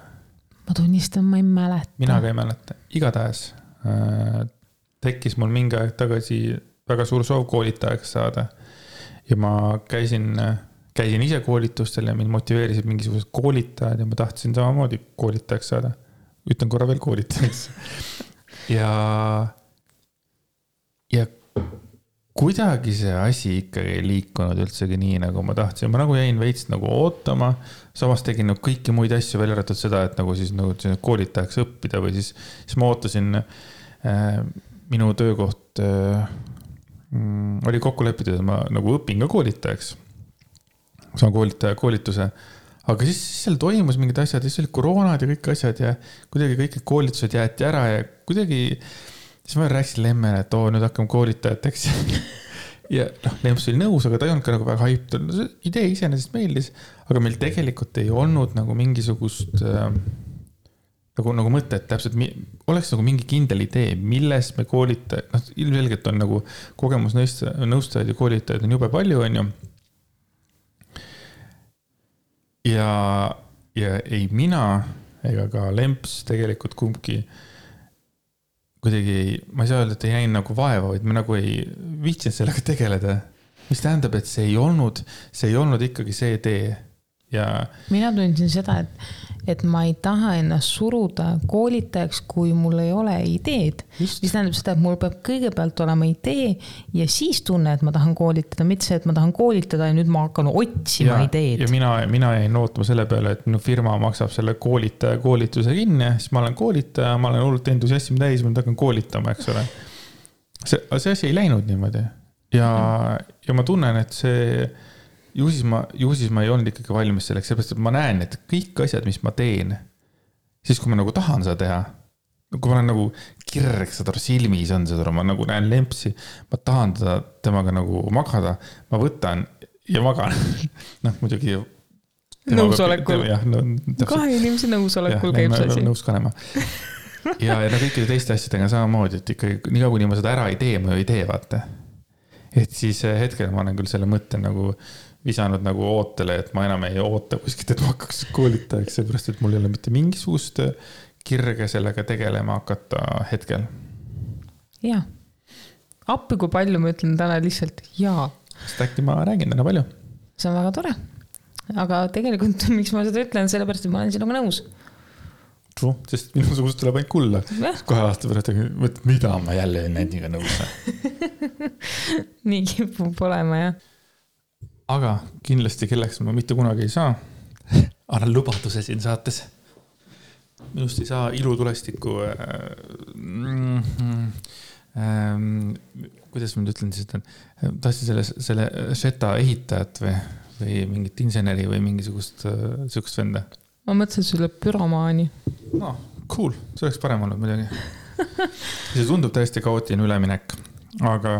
Ma tunnistan, ma ei mäleta. Mina ka ei mäleta. Igatahes tekkis mul mingi aeg tagasi väga suur soov koolitajaks saada. Ja ma käisin ise koolitustel ja mind motiveerisid mingisugused koolitajad ja ma tahtsin samamoodi koolitajaks saada. Ütlen korra veel koolitajaks. Ja kuidagi see asi ikkagi ei liikunud üldsegi nii, nagu ma tahtsin. Ma nagu jäin veits nagu ootama, samas tegin nagu kõiki muid asju välja arvatud seda, et nagu siis nagu koolitajaks õppida või siis ma ootasin minu töökoht oli kokku lepitud, et ma nagu õpin ka koolitajaks. Saan koolituse. Aga siis seal toimus mingid asjad, siis oli koroonad ja kõik asjad ja kuidagi kõik koolitused jäeti ära ja kuidagi siis ma rääkisin Lemmele, et nüüd hakkame koolitajateks. Ja Lemps oli nõus, aga ta ei olnud ka nagu väga haiptud. Idee iseenesest meeldis, aga meil tegelikult ei olnud nagu mingisugust nagu mõtet täpselt, oleks nagu mingi kindel idee, millest me koolitajad, ilmselgelt on nagu kogemusnõustajad ja koolitajad on jube palju, on ju. Ja ei mina ega ka Lemps tegelikult kumbki kuidagi, ma ei saa öelda, et ei jäin nagu vaeva, vaid ma nagu ei viitsinud sellega tegeleda. Mis tähendab, et see ei olnud ikkagi see tee. Ja... Mina tundsin seda, et ma ei taha ennast suruda koolitajaks, kui mul ei ole ideed. Mis tähendab seda, et mul peab kõigepealt olema idee ja siis tunne, et ma tahan koolitada, mitte see, et ma tahan koolitada ja nüüd ma hakkan otsima ideed. Ja mina jäin ootama selle peale, et minu firma maksab selle koolitaja koolituse kinni, siis ma olen koolitaja, ma olen hullult entusiasmi täis, ma hakkan koolitama, eks ole. See asi ei läinud niimoodi. Ja ma tunnen, et see... Ju siis ma ei olnud ikkagi valmis selleks, seepärast, et ma näen, et kõik asjad, mis ma teen, siis kui ma nagu tahan seda teha, kui ma olen nagu kirg, seda silmis on seda, ma nagu näen Lempsi, ma tahan temaga nagu magada, ma võtan ja magan. Muidugi... Nõusolekul. Kahe inimese nõusolekul käib see asi. Nõus kanema. Ja kõikide teiste asjadega samamoodi, et ikkagi nii kaua, kui ma seda ära ei tee, ma ei tee, vaata. Et siis hetkel ma olen küll selle mõtte nagu visanud nagu ootele, et ma enam ei oota kuskilt, et ma hakkaks koolitajaks, seepärast, et mul ei ole mitte mingisugust kirge sellega tegelema hakata hetkel. Jaa. Appi kui palju ma ütlen täna lihtsalt jaa. Sest äkki ma räägin täna palju. See on väga tore. Aga tegelikult, miks ma seda ütlen, sellepärast, et ma olen sinuga nõus. sest minusugust tuleb ainult kulla. Kohe aasta pärast, mida ma jälle nendiga nõus. Nii kipub olema, jah. Aga kindlasti kelleks ma mitte kunagi ei saa. Annan lubaduse siin saates. Minust ei saa ilutulestiku kuidas ma nüüd ütlen siis, et tahtsin selle Šeta ehitajat või mingit inseneri või mingisugust sükust venda. Ma mõtlesin sulle pyromaani. No, cool. See oleks parem olnud muidugi. See tundub täiesti kaootiline üleminek. Aga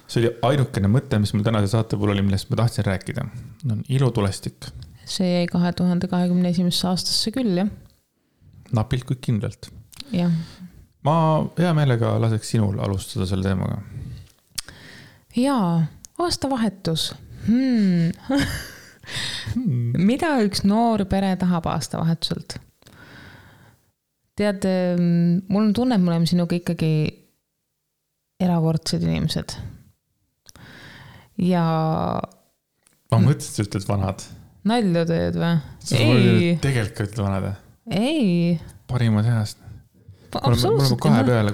see oli ainukene mõte, mis mul tänase saate puhul oli, millest ma tahtsin rääkida. On ilutulestik. See jäi 2021. aastasse küll, jah? Napilt kui kindlalt. Jah. Ma hea meelega laseks sinul alustada selle teemaga. Jaa, aastavahetus. Mida üks noor pere tahab aastavahetuselt? Tead, mul on tunne, et me oleme sinuga ikkagi erakordsed inimesed. Ja... Ma mõtlesin, sa ütled vanad. Nalju teed või? Ei. Tegelikult ütled vanad. Ei. Parimad heast. Absoluutselt. Mul on 2 peale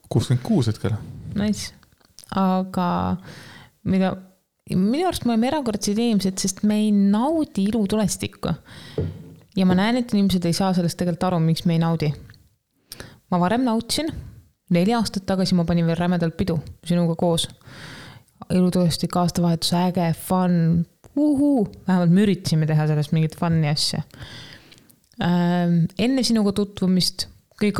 66 hetkel. Nice. Aga minu arust me oleme erakordsed inimesed, sest me ei naudi ilutulestikku. Ja ma näen, et inimesed ei saa sellest tegelikult aru, miks me ei naudi. Ma varem nautsin. 4 aastat tagasi ma panin veel rämedalt pidu sinuga koos. Ilutulestik, aastavahetus, äge, fun. Vähemalt me üritasime teha sellest mingit fun'i asja. Enne sinuga tutvumist kõik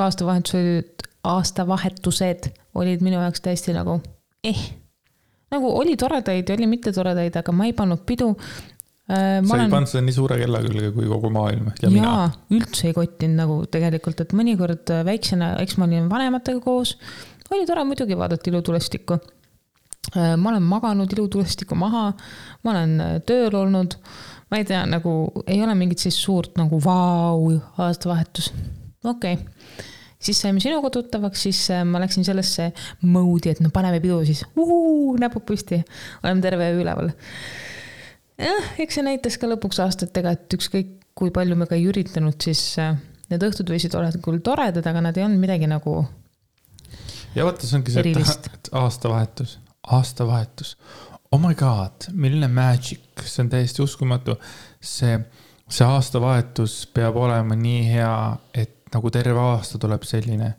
aastavahetused olid minu jaoks täiesti nagu nagu oli toredaid ja oli mitte toredaid, aga ma ei pannud pidu. Sa ei pannud seda nii suure kella külge kui kogu maailm ja mina. Jaa, üldse ei kottinud nagu tegelikult, et mõnikord väiksena, eks ma olin vanematega koos, oli tore muidugi vaadata ilutulestikku. Ma olen maganud ilutulestikku maha, ma olen tööl olnud, ma ei tea, nagu ei ole mingit siis suurt nagu aastavahetus. Okei. Siis saime sinuga tuttavaks, siis ma läksin sellesse moodi, et no paneme pidu siis. Näpud püsti. Oleme terve üleval. Eks see näitas ka lõpuks aastatega, et ükskõik kui palju me ka ei üritanud, siis need õhtud võisid olla küll toredad, aga nad ei olnud midagi nagu ja vaata, see ongi see, et aastavahetus. Oh my god, milline magic. See on täiesti uskumatu. See aastavahetus peab olema nii hea, et nagu terve aasta tuleb selline.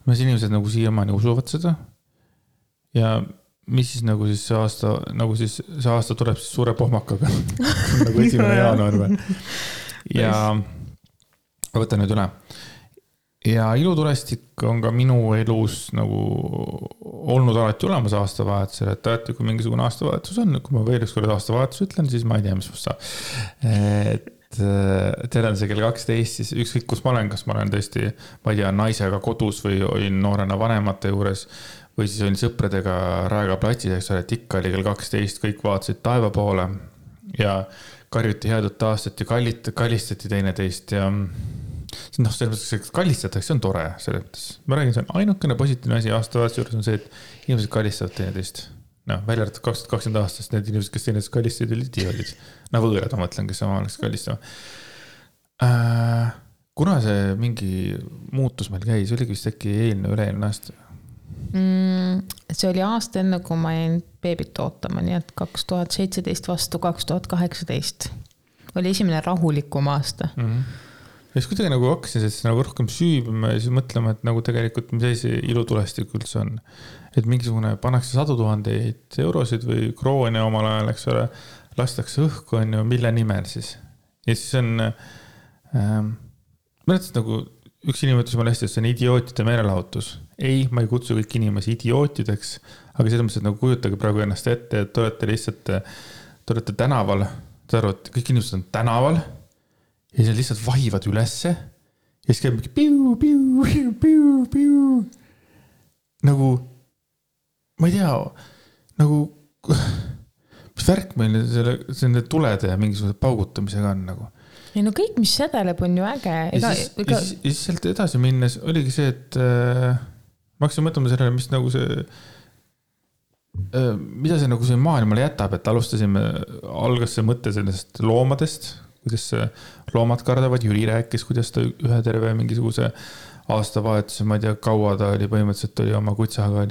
Mis inimesed nagu siiamaani usuvad seda. Ja mis siis nagu siis see aasta tuleb siis suure pohmakaga. Nagu 1. jaanuar või. Ja võtan nüüd üle. Ja ilutulestik on ka minu elus nagu olnud alati olemas aastavahetusel, et alati kui mingisugune aastavahetus on, kui ma veel üks kord aastavahetus ütlen, siis ma ei tea, mis must saab. Teil on see kell 12, siis ükskõik kus ma olen, kas ma olen tõesti, ma ei tea, naisega kodus või olin noorena vanemate juures või siis olin sõpradega Raega platsis, et ikka oli kell 12, kõik vaatasid taeva poole ja karjuti headut aastat ja kallistati teineteist ja selles mõttes, kallistatakse, see on tore selles mõttes. Ma räägin, see on ainukene positiivne asi aastavahetuse juures on see, et inimesed kallistavad teineteist. Välja arvatud 2020 aastast need inimesed, kes teineteist kallistasid, olid idioodid. Võõrad, ma mõtlen, kes sama oleks kallistama. Kuna see mingi muutus meil käis, oligi vist äkki üle-eelne aasta? See oli aasta enne, kui ma jäin beebit ootama, nii et 2017 vastu 2018 oli esimene rahulikum aasta. Ja siis kuidagi nagu hakkasin nagu rohkem süübima ja siis mõtlema, et nagu tegelikult mis see ilutulestik üldse on. Et mingisugune pannakse 100 000 eurosid või kroone omal ajal, eks ole, lastakse õhku, on ju, mille nimel siis. Ja siis on, mõtlesin nagu üks inimene ütles mulle hästi, et see on idiootide meelelahutus. Ei, ma ei kutsu kõik inimesi idiootideks, aga seda mõttes, et nagu kujutage praegu ennast ette, et te olete lihtsalt, te olete tänaval, te arvate, kõik inimesed on tänaval ja siis lihtsalt vahivad ülesse ja siis käib mingi piu. Nagu, ma ei tea, nagu, mis värk meil selle tulede ja mingisuguse paugutamisega on nagu. Ei no kõik, mis sädeleb, on ju äge. Ja siis sealt edasi minnes oligi see, et ma hakkasin mõtlema sellele, mis nagu see, mida see nagu see maailmale jätab, et algas see mõte sellest loomadest, kuidas loomad kardavad, Jüri rääkis, kuidas ta ühe terve mingisuguse aastavahetuse, ma ei tea, kaua ta oli, põhimõtteliselt oli oma kutsaga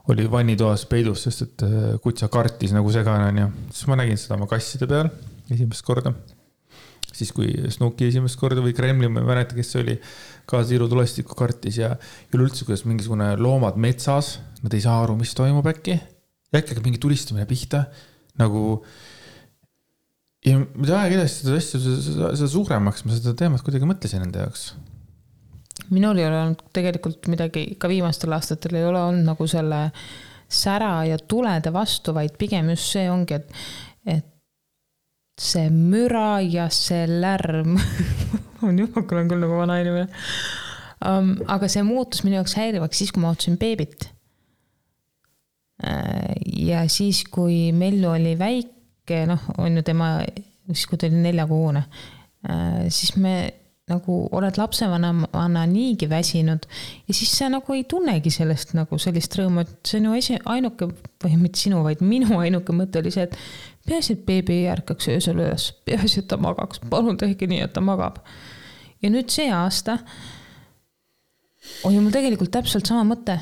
oli vannitoas peidus, sest et kutsa kartis nagu segane on ja siis ma nägin seda oma kasside peal esimest korda. Siis kui Snooki esimest korda või Kremli, ma ei mäleta, kes see oli, ka Tiiru tulestiku kartis ja üleüldse, kuidas mingisugune loomad metsas, nad ei saa aru, mis toimub äkki. Ja äkki mingi tulistamine pihta, nagu ja aeg edasi seda asja, seda suuremaks ma seda teemat kuidagi mõtlesin enda jaoks. Minul ei ole olnud tegelikult midagi, ka viimastel aastatel ei ole olnud nagu selle sära ja tulede vastu, vaid pigem just see ongi, et see müra ja see lärm on juba, kui olen küll nagu vana inimene. Aga see muutus minu jaoks häirivaks siis, kui ma ootasin beebit. Ja siis, kui Mellu oli väike, on ju tema, siis kui ta oli 4-kuune, siis me nagu oled lapsevanna niigi väsinud ja siis sa nagu ei tunnegi sellest nagu sellist rõõmu, et see on ju ainuke, või mitte sinu, vaid minu ainuke mõte oli see, et peaasi, et beebi ei ärkaks öösel üles, peaasi, et ta magaks, palun tehke nii, et ta magab. Ja nüüd see aasta oli mul tegelikult täpselt sama mõte,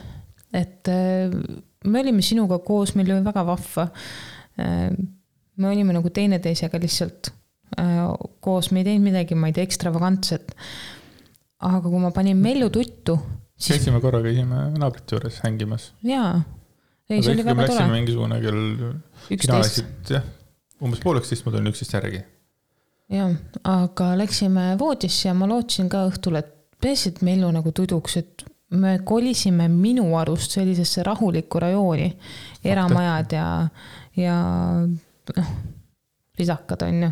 et me olime sinuga koos, meil oli väga vahva, me olime nagu teineteisega lihtsalt koos, me ei teinud midagi, ma ei tea, ekstravagantset. Aga kui ma panin Mellu tuttu... Käisime naabrite juures hängimas. Jaa. Ei, see oli väga tore. Läksime mingisugune kell 11. Umbes 12, ma tulin 11 järgi. Jaa, aga läksime voodisse ja ma lootsin ka õhtul, et peasid Mellu nagu tuduks, et me kolisime minu arust sellisesse rahulikku rajooni, eramajad ja risakad on ju,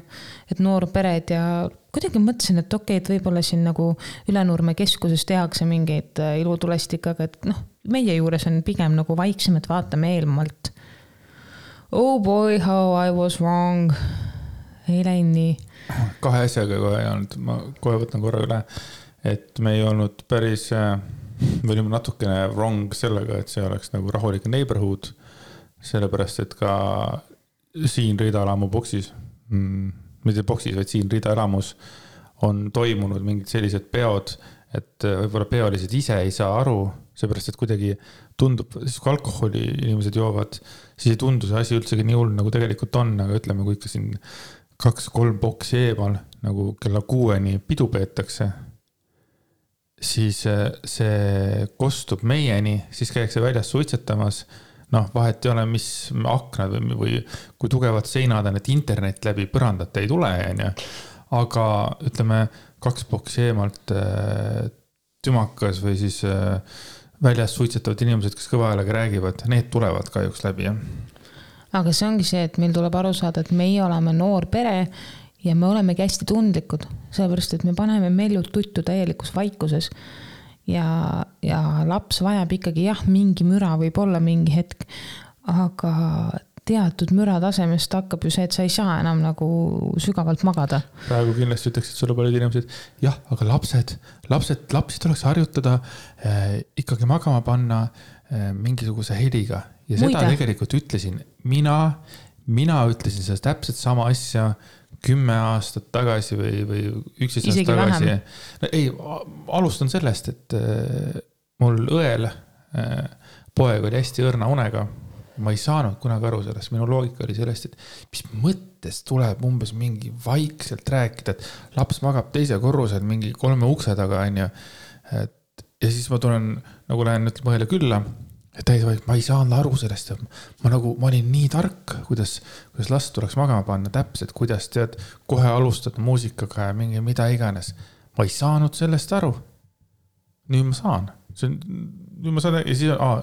et noorpered ja kuidagi mõtlesin, et okei, et võib-olla siin nagu Ülenurme keskuses tehakse mingeid ilutulestikaga, et meie juures on pigem nagu vaiksem, et vaatame eelmalt. Oh boy, how I was wrong. Ei läinud nii. 2 asjaga kohe ei olnud, ma kohe võtan korra üle, et me ei olnud päris, me olime natukene wrong sellega, et see oleks nagu rahulik neighborhood, sellepärast, et ka siin Riida-elamu boksis, mitte boksis, vaid siin Riida-elamus on toimunud mingid sellised peod, et võib-olla peolised ise ei saa aru, seepärast, et kuidagi tundub, siis kui alkoholi inimesed joovad, siis ei tundu see asi üldsegi nii hull, nagu tegelikult on, aga ütleme, kui ikka siin 2-3 boksi eemal, nagu kella 6-ni pidu peetakse, siis see kostub meieni, siis käiakse väljas suitsetamas, vahet ei ole, mis aknad või kui tugevad seinad on, et internet läbi põrandat ei tule, aga ütleme 2 boksi eemalt tümakas või siis väljas suitsetavad inimesed, kes kõva häälega räägivad, need tulevad kahjuks läbi. Aga see ongi see, et meil tuleb aru saada, et meie oleme noor pere ja me olemegi hästi tundlikud, sellepärast, et me paneme Mellu tuttu täielikus vaikuses. Ja laps vajab ikkagi mingi müra võib olla mingi hetk, aga teatud müra tasemest hakkab ju see, et sa ei saa enam nagu sügavalt magada. Praegu kindlasti ütleks, et sulle paljud inimesed, aga lapsi tuleks harjutada, ikkagi magama panna mingisuguse heliga. Ja seda tegelikult ütlesin, mina ütlesin seda täpselt sama asja 10 aastat tagasi või 11 aastat tagasi. Ei, alustan sellest, et mul õel poeg oli hästi õrna unega. Ma ei saanud kunagi aru sellest. Minu loogika oli sellest, et mis mõttes tuleb umbes mingi vaikselt rääkida, et laps magab teise korrusel mingi 3 ukse taga. Ja siis ma tulen, nagu lähen mõhele külla, et ma ei saanud aru sellest, ma olin nii tark, kuidas last tuleks magama panna täpselt, kuidas tead, kohe alustad muusikaga ja mingi mida iganes. Ma ei saanud sellest aru. Nüüd ma saan. Ja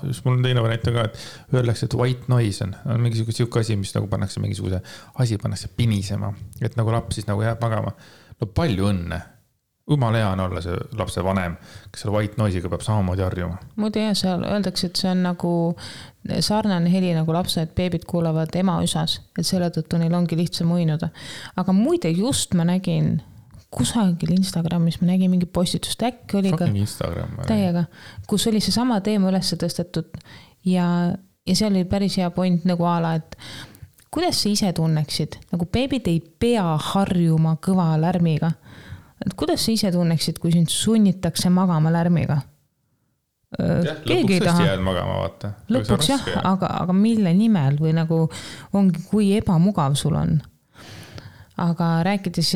siis mul on teine variant ka, et öeldakse, et white noise on mingisugune siuke asi, mis nagu pannakse mingisuguse asi pannakse pinisema, et nagu laps siis nagu jääb magama. No palju õnne. Jumala hea on olla see lapse vanem, kes selle white noise'iga peab samamoodi harjuma. Muidu seal öeldakse, et see on nagu sarnane heli nagu lapsed, beebid kuulavad ema üsas, et selle tõttu neil ongi lihtsam uinuda. Aga muide just ma nägin kusagil Instagramis, ma nägin mingi postitust, äkki oli ka täiega, kus oli see sama teema üles tõstetud ja seal oli päris hea point nagu ala, et kuidas sa ise tunneksid? Nagu beebid ei pea harjuma kõva lärmiga. Et kuidas sa ise tunneksid, kui sind sunnitakse magama lärmiga? Lõpuks tõesti jääd magama, vaata. Lõpuks jah, aga mille nimel või nagu ongi, kui ebamugav sul on. Aga rääkides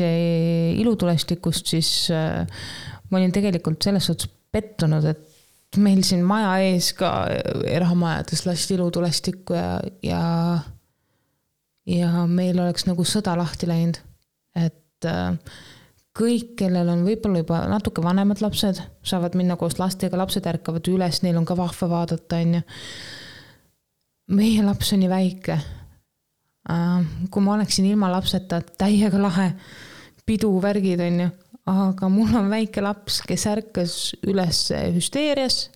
ilutulestikust, siis ma olin tegelikult selles suhtes pettunud, et meil siin maja ees ka erahamajades lasti ilutulestikku ja meil oleks nagu sõda lahti läinud. Et kõik, kellel on võib-olla juba natuke vanemad lapsed, saavad minna koos lastega, lapsed ärkavad üles, neil on ka vahva vaadata. Meie laps on nii väike. Kui ma oleksin ilma lapseta, täiega lahe pidu värgid, aga mul on väike laps, kes ärkas üles hüsteerias,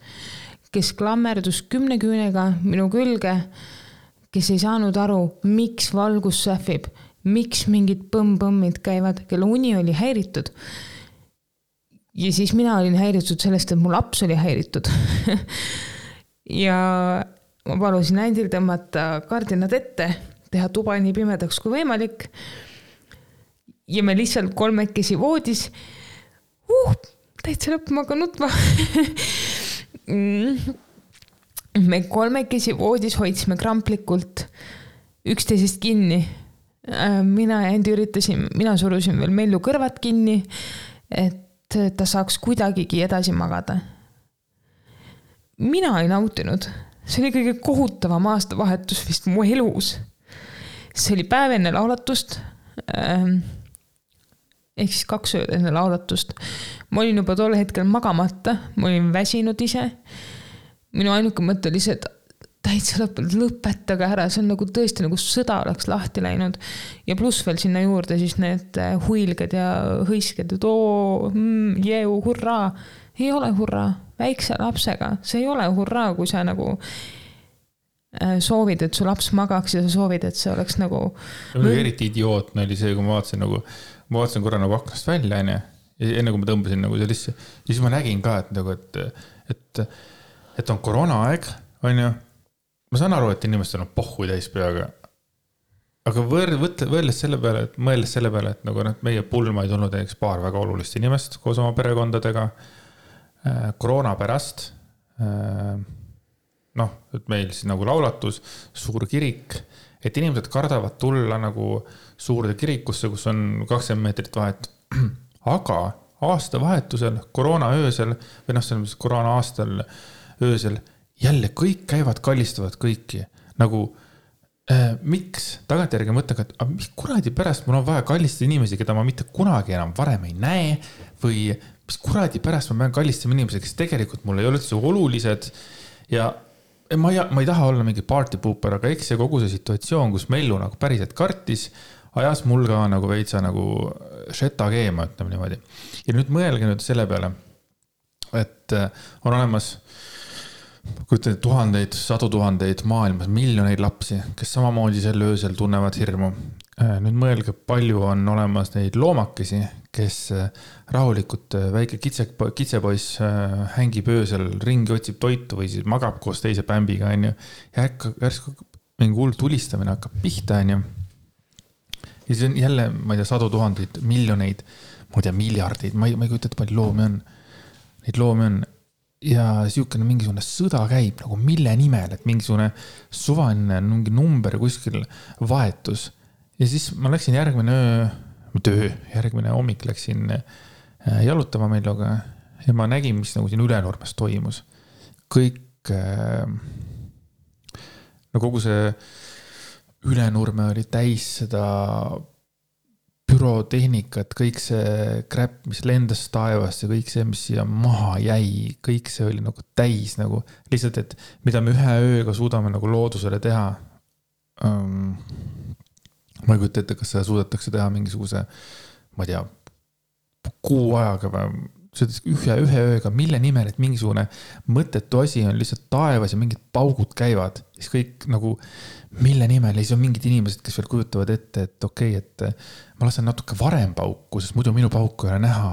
kes klammerdus 10 küünega minu külge, kes ei saanud aru, miks valgus sähvib, miks mingid põmm-põmmid käivad, kelle uni oli häiritud. Ja siis mina olin häiritud sellest, et mu laps oli häiritud. Ja ma palusin ändil tõmmata kardinad ette, teha tuba nii pimedaks kui võimalik. Ja me lihtsalt kolmekesi voodis. Täitsa lõpp, ma ka nutma. Me kolmekesi voodis hoidsime kramplikult üksteisest kinni. Mina ja Endi mina surusin veel Mellu kõrvad kinni, et ta saaks kuidagigi edasi magada. Mina ei nautinud. See oli kõige kohutavam aastavahetus vist mu elus. See oli päev enne laulatust. Ehk siis 2 ööd enne laulatust. Ma olin juba tol hetkel magamata, ma olin väsinud ise. Minu ainuke mõte oli see, et täitsa lõpetage ära, see on nagu tõesti nagu sõda oleks lahti läinud. Ja pluss veel sinna juurde siis need huilged ja hõisked, et jeu, hurraa. Ei ole hurraa, väikse lapsega. See ei ole hurraa, kui sa nagu soovid, et su laps magaks ja sa soovid, et see oleks nagu... Eriti idiootne oli see, kui ma vaatasin korra nagu aknast välja, enne kui ma tõmbasin nagu sellisse. Ja siis ma nägin ka, et on koroonaaeg, on ju. Ma saan aru, et inimestel on pohhu täis peaga. Aga mõeldes selle peale, et nagu meie pulma ei tulnud paar väga olulist inimest koos oma perekondadega koroona pärast. Et meil siis nagu laulatus, suur kirik, et inimesed kardavad tulla nagu suurde kirikusse, kus on 20 meetrit vahet. Aga aastavahetusel, koroona öösel, või see koroona aastal öösel, jälle kõik käivad, kallistavad kõiki. Nagu, miks? Tagantjärgi mõtlen, et mis kuradi pärast mul on vaja kallistada inimesi, keda ma mitte kunagi enam varem ei näe, või mis kuradi pärast ma pean kallistama inimesi, kes tegelikult mul ei ole üldse olulised. Ja ma ei taha olla mingi party pooper, aga eks see kogu see situatsioon, kus Mellu nagu päriselt kartis, ajas mul ka nagu veitsa nagu šeta keema, ütleme niimoodi. Ja nüüd mõelge nüüd selle peale, et on olemas tuhandeid, 100 000 maailmas, miljoneid lapsi, kes samamoodi sel öösel tunnevad hirmu. Nüüd mõelge, palju on olemas neid loomakesi, kes rahulikult väike kitsepoiss hängib öösel, ringi otsib toitu või siis magab koos teise pämbiga. Ja järsku mingi hull tulistamine hakkab pihta. Ja siis on jälle, ma ei tea, 100 000, miljoneid, ma ei tea, miljardeid, ma ei kujuta, et palju loomi on. Neid loomi on. Ja siukene mingisugune sõda käib nagu mille nimel, et mingisugune suvaline mingi number kuskil vahetus. Ja siis ma läksin järgmine hommik läksin jalutama Melluga ja ma nägin, mis nagu siin Ülenurmes toimus. Kõik, no kogu see Ülenurme oli täis seda pürotehnikat, kõik see kräpp, mis lendas taevast ja kõik see, mis siia maha jäi, kõik see oli nagu täis nagu lihtsalt, et mida me ühe ööga suudame nagu loodusele teha. Ma ei kujuta ette, kas seda suudetakse teha mingisuguse, ma ei tea, kuu ajaga või ühe ööga, mille nimel, et mingisugune mõttetu asi on lihtsalt taevas ja mingid paugud käivad. Siis kõik nagu, mille nimel, ja siis on mingid inimesed, kes veel kujutavad ette, et okei, et ma lasen natuke varem pauku, sest muidu minu pauku ei ole näha.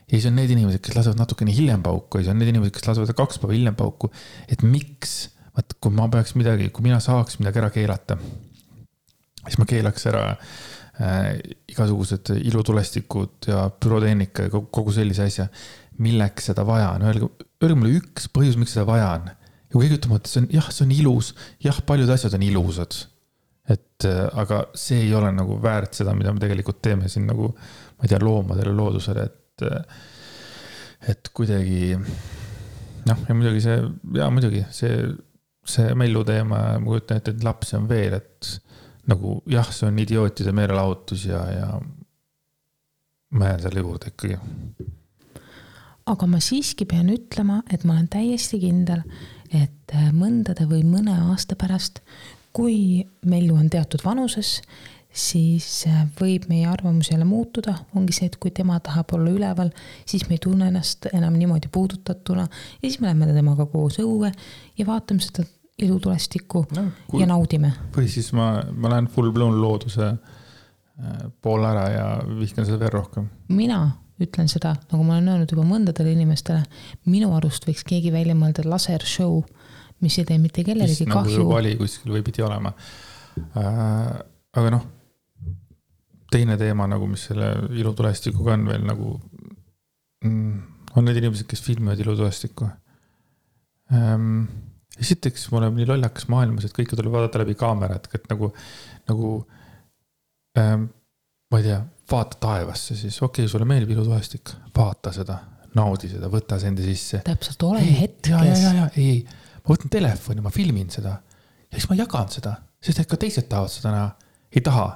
Ja siis on need inimesed, kes lasevad natuke nii hiljem pauku, ja siis on need inimesed, kes lasevad 2 päeva hiljem pauku. Et miks, kui ma peaks midagi, kui mina saaks midagi ära keelata, siis ma keelaks ära igasugused ilutulestikud ja pürotehnika ja kogu sellise asja. Milleks seda vaja on? Öelge mulle üks põhjus, miks seda vaja on. Ja kui keegi ütlema, et see on ilus, paljud asjad on ilusad. Aga see ei ole nagu väärt seda, mida me tegelikult teeme siin nagu, ma ei tea, loomadele, loodusele, et kuidagi, noh, ja muidugi see mellu teema, ma kujutan, et lapsi on veel, et nagu see on idiootide meelelahutus ja ma jään selle juurde ikkagi. Aga ma siiski pean ütlema, et ma olen täiesti kindel, et mõndade või mõne aasta pärast, kui mellu on teatud vanuses, siis võib meie arvamus jälle muutuda. Ongi see, et kui tema tahab olla üleval, siis me ei tunne ennast enam niimoodi puudutatuna ja siis me lähme temaga koos õue ja vaatame seda ilutulestikku ja naudime. Või siis ma lähen full blown looduse pool ära ja vihkan seda veel rohkem. Mina ütlen seda, nagu ma olen öelnud juba mõndadele inimestele, minu arust võiks keegi välja mõelda laser show, mis ei tee mitte kellelegi kahju. Nagu vali kuskil või pidi olema. Aga noh, teine teema, nagu mis selle ilutulestikuga on veel nagu, on need inimesed, kes filmivad ilutulestikku. Esiteks, mul on nii lollakas maailmas, et kõike tuleb vaadata läbi kaamerat, et nagu ma ei tea, vaata taevasse siis, okei, sulle meeldib ilutulestik, vaata seda, naudi seda, võta see enda sisse. Täpselt, ole hetkes. Ei, ma võtan telefoni, ma filmin seda ja siis ma jagan seda, sest et ka teised tahavad seda näha. Ei taha.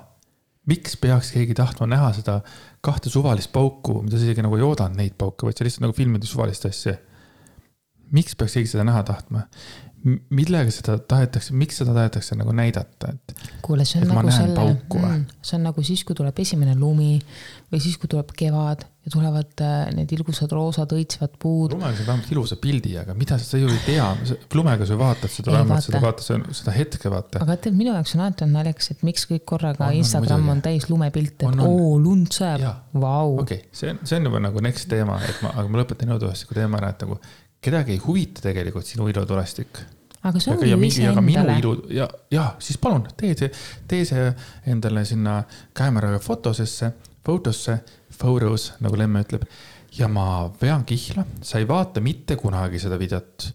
Miks peaks keegi tahtma näha seda 2 suvalist pauku, mida sa isegi nagu ei oodanud neid pauke, vaid sa lihtsalt nagu filmid suvalist asja. Miks peaks keegi seda näha tahtma? Millega seda tahetakse, miks seda tahetakse nagu näidata? Kuule, see on nagu see on nagu siis, kui tuleb esimene lumi või siis, kui tuleb kevad ja tulevad need ilgusad roosad õitsvad puud. Lumega sa vähemalt ilusa pildi, aga mida sa ju ei tea? Lumega sa vaatad seda, vähemalt seda hetke vaata. Aga tead, minu jaoks on alati naljakas, et miks kõik korraga Instagram on täis lumepilt, et lund sõeb. Vau. Okei, see on juba nagu next teema, aga ma lõpetan ilutulestiku teema ära, et nagu kedagi ei huvita tegelikult sinu ilutulestik. Aga see on ju ise endale. Ja, siis palun, tee see endale sinna kaameraga fotosse, photos, nagu Lemme ütleb. Ja ma vean kihla, sa ei vaata mitte kunagi seda videot.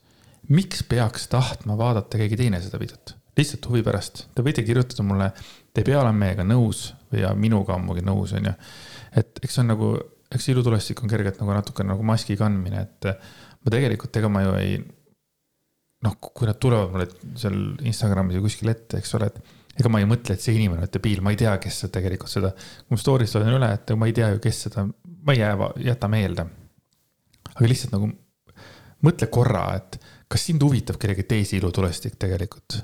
Miks peaks tahtma vaadata keegi teine seda videot? Lihtsalt huvi pärast. Te võite kirjutada mulle, te ei pea olema meiega nõus või minuga ammugi nõus. On ju. Et eks on nagu, eks ilutulestik on kergelt nagu natuke nagu maski kandmine, et ma tegelikult ega ma ju ei, noh, kui nad tulevad mulle seal Instagramis ja kuskil ette, eks ole, et ega ma ei mõtle, et see inimene on debiil, ma ei tea, kes see tegelikult seda, kui ma stories olen üle, et ma ei tea ju, kes seda, ma ei jäta meelde. Aga lihtsalt nagu mõtle korra, et kas sind huvitab kellegi teisi ilutulestik tegelikult?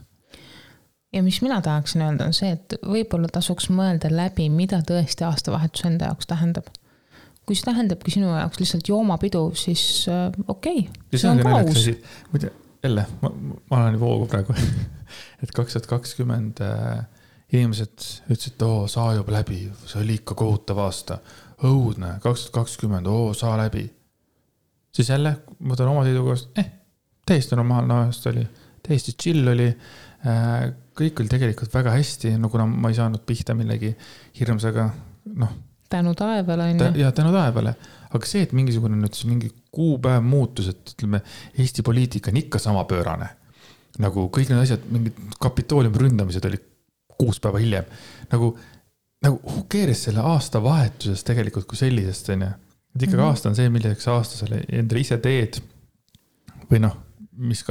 Ja mis mina tahaksin öelda on see, et võib-olla tasuks mõelda läbi, mida tõesti aastavahetus enda jaoks tähendab. Kui see tähendabki sinu jaoks lihtsalt joomapidu, siis okei. See on ka aus. Muide, jälle, ma olen voogu praegu, et 2020 inimesed ütlesid, saa juba läbi, see oli ikka kohutav aasta. Õudne, 2020, saa läbi. Siis jälle, ma tõin oma seisukohast, täiesti normaalne aasta oli, täiesti chill oli, kõik oli tegelikult väga hästi, no kuna ma ei saanud pihta millegi hirmsaga, noh, tänu taevale on ja tänu taevale. Aga see, et mingisugune nüüd mingi kuupäev muutus, et ütleme, Eesti poliitika on ikka sama pöörane. Nagu kõik need asjad, mingid kapitooliumi ründamised oli 6 päeva hiljem. Nagu who cares selle aasta vahetuses tegelikult kui sellisest, on ju. Et ikkagi aasta on see, milleks aasta selle endale ise teed või noh, mis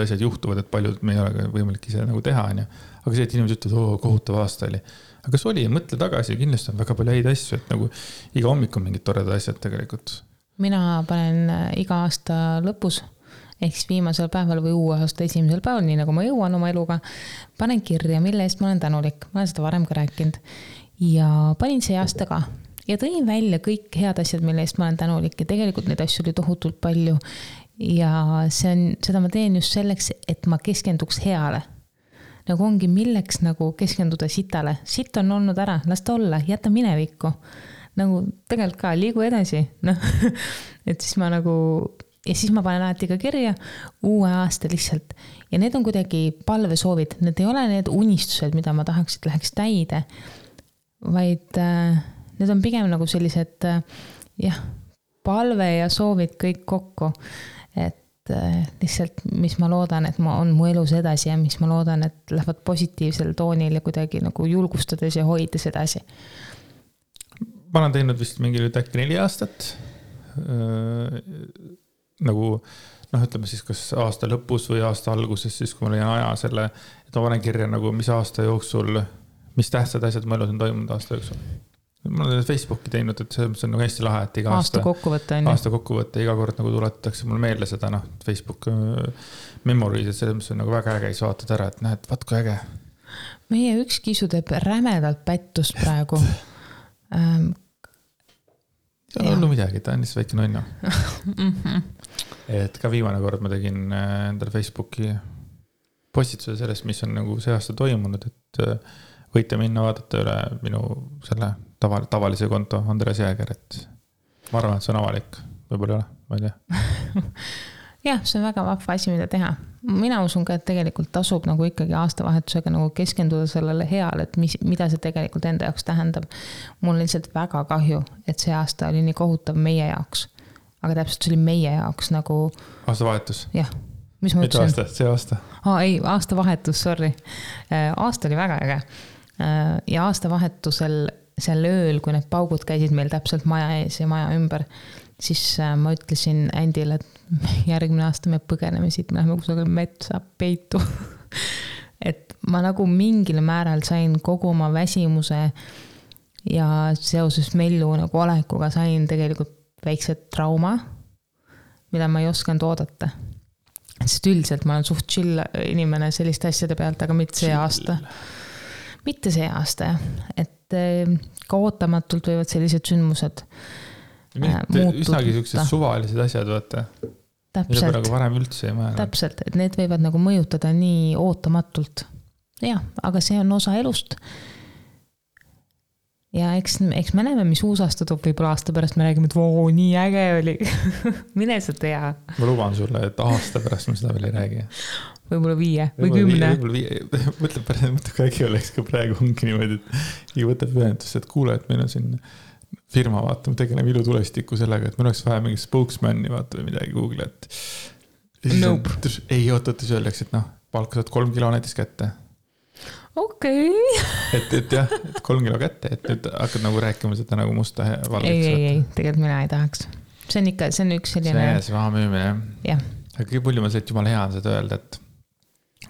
asjad juhtuvad, et paljud me ei ole võimalik ise nagu teha, on ju. Aga see, et inimesed ütlevad, kohutav aasta oli. Aga kas oli, mõtle tagasi, kindlasti on väga palju häid asju, et nagu iga hommik on mingid toredad asjad tegelikult. Mina panen iga aasta lõpus, ehk siis viimasel päeval või uue aasta esimesel päeval, nii nagu ma jõuan oma eluga, panen kirja, mille eest ma olen tänulik. Ma olen seda varem ka rääkinud. Ja panin see aasta ka. Ja tõin välja kõik head asjad, mille eest ma olen tänulik. Ja tegelikult neid asju oli tohutult palju. Ja seda ma teen just selleks, et ma keskenduks heale. Nagu ongi milleks nagu keskenduda sitale. Sitt on olnud ära, las ta olla, jäta minevikku. Nagu tegelikult ka liigu edasi. No. Et siis ma nagu ja siis ma panen alati ka kirja uue aasta lihtsalt. Ja need on kuidagi palvesoovid, need ei ole need unistused, mida ma tahaks, et läheks täide, vaid need on pigem nagu sellised palve ja soovid kõik kokku. Et lihtsalt, mis ma loodan, et ma on mu elus edasi ja mis ma loodan, et lähevad positiivsel toonil ja kuidagi nagu julgustades ja hoides edasi. Ma olen teinud vist mingi nüüd äkki 4 aastat. Nagu, ütleme siis kas aasta lõpus või aasta alguses, siis kui ma leian aja selle, et ma panen kirja nagu, mis aasta jooksul, mis tähtsad asjad mu elus on toimunud aasta jooksul. Ma olen Facebooki teinud, et see on nagu hästi lahe, et iga aasta kokkuvõtte, iga kord nagu tuletatakse mulle meelde seda, Facebook memories, et selles on nagu väga äge, siis vaatad ära, et näed, vaat kui äge. Meie üks kisu teeb rämedalt pättust praegu. See on olnud midagi, ta on lihtsalt väike nonno. Et ka viimane kord ma tegin endale Facebooki postituse sellest, mis on nagu see aasta toimunud, et võite minna vaadata üle minu selle tavalise konto Andres Jääger, et ma arvan, et see on avalik, võib-olla ei ole, ma ei tea. Jah, see on väga vahva asi, mida teha. Mina usun ka, et tegelikult tasub nagu ikkagi aastavahetusega nagu keskenduda sellele heale, et mida see tegelikult enda jaoks tähendab. Mul on lihtsalt väga kahju, et see aasta oli nii kohutav meie jaoks. Aga täpselt see oli meie jaoks nagu... Aastavahetus? Jah. Mis ma ütlesin? Mitte aasta, see aasta. Ei, aastavahetus, sorry. Aasta oli väga äge. Ja aastavahetusel seal ööl, kui need paugud käisid meil täpselt maja ees ja maja ümber, siis ma ütlesin Andile, et järgmine aasta me põgeneme siit, me läheme kusagil metsa peitu. Et ma nagu mingil määral sain kogu oma väsimuse ja seoses Mellu nagu olekuga sain tegelikult väikse trauma, mida ma ei osanud oodata. Sest üldiselt ma olen suht chill inimene selliste asjade pealt, aga mitte see aasta. Mitte see aasta, et ka ootamatult võivad sellised sündmused üsnagi sellised suvalised asjad, vaata. Täpselt. Mida nagu varem üldse ei määranud. Täpselt, et need võivad nagu mõjutada nii ootamatult. Jah, aga see on osa elust. Ja eks me näeme, mis uus aasta toob, võib-olla aasta pärast me räägime, et voo, nii äge oli. Mine sa tea. Ma luban sulle, et aasta pärast me seda veel ei räägi. Võib-olla 5 või 10. Mõtle, kui äkki oleks ka praegu ongi niimoodi, et ei võtab ühendust, et kuule, et meil on siin firma, vaata, me tegeleme ilutulestiku sellega, et meil oleks vaja mingi spokesman'i, vaata, või midagi Google, et nope. Ei ootates öeldaks, et palka saad 3 kilo näiteks kätte. Okei. Et jah, et 3 kilo kätte, et nüüd hakkad nagu rääkima seda nagu musta valgeks. Ei, tegelikult mina ei tahaks. See on üks selline... See raha müümine. Jah. Aga kõige palju ma see, et jumala hea on seda öelda, et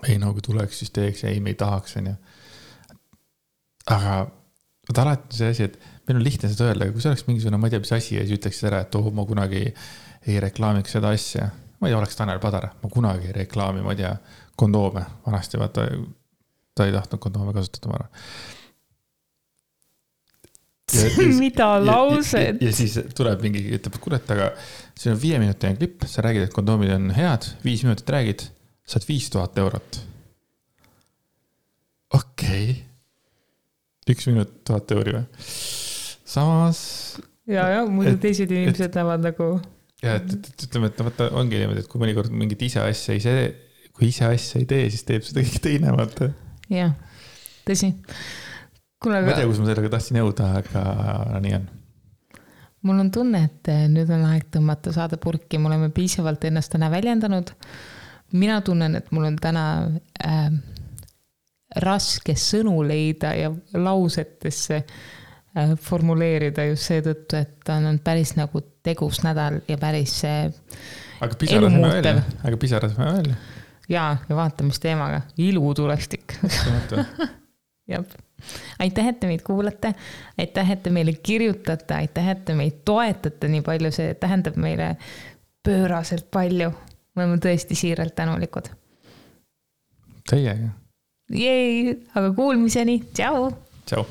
ei, no kui tuleks, siis teeks, ei, me ei tahaks, on ju. Aga alati see asi, et meil on lihtne seda öelda, aga kui see oleks mingisugune, ma ei tea, mis asi ja siis ütleks ära, et ma kunagi ei reklaamiks seda asja. Ma ei tea, oleks Tanel Padar, ma kunagi ei reklaami, ma ei tea, kondoome vanasti, vaata, ta ei tahtnud kondoome kasutada, ma arvan. Mida laused? Ja siis tuleb mingi, ütleb, et kurat, aga see on 5-minutine klipp, sa räägid, et kondoomid on head, 5 minutit räägid, saad 5000 eurot. Okei. 1 minut 1000 euri või? Samas... Ja, muidu teised inimesed näevad nagu... Ja, et ütleme, et võtta, ongi niimoodi, et kui mõnikord mingit ise asja ei tee, siis teeb seda kõik teine, vaata. Jah, tõsi. Ma ei tea, kus ma sellega tahtsin jõuda, aga nii on. Mul on tunne, et nüüd on aeg tõmmata saada purki. Me oleme piisavalt ennast täna väljendanud. Mina tunnen, et mul on täna raske sõnu leida ja lausetesse formuleerida just seetõttu, et on päris nagu tegus nädal ja päris elumuutev. Aga pisarasime välja. Ja vaatamisteemaga. Ilutulestik. Jab. Aitäh, et te meid kuulate. Aitäh, et te meile kirjutate. Aitäh, et te meid toetate nii palju. See tähendab meile pööraselt palju. Me oleme tõesti siiralt tänulikud. Teiega. Jej, aga kuulmiseni. Tšau. Tšau.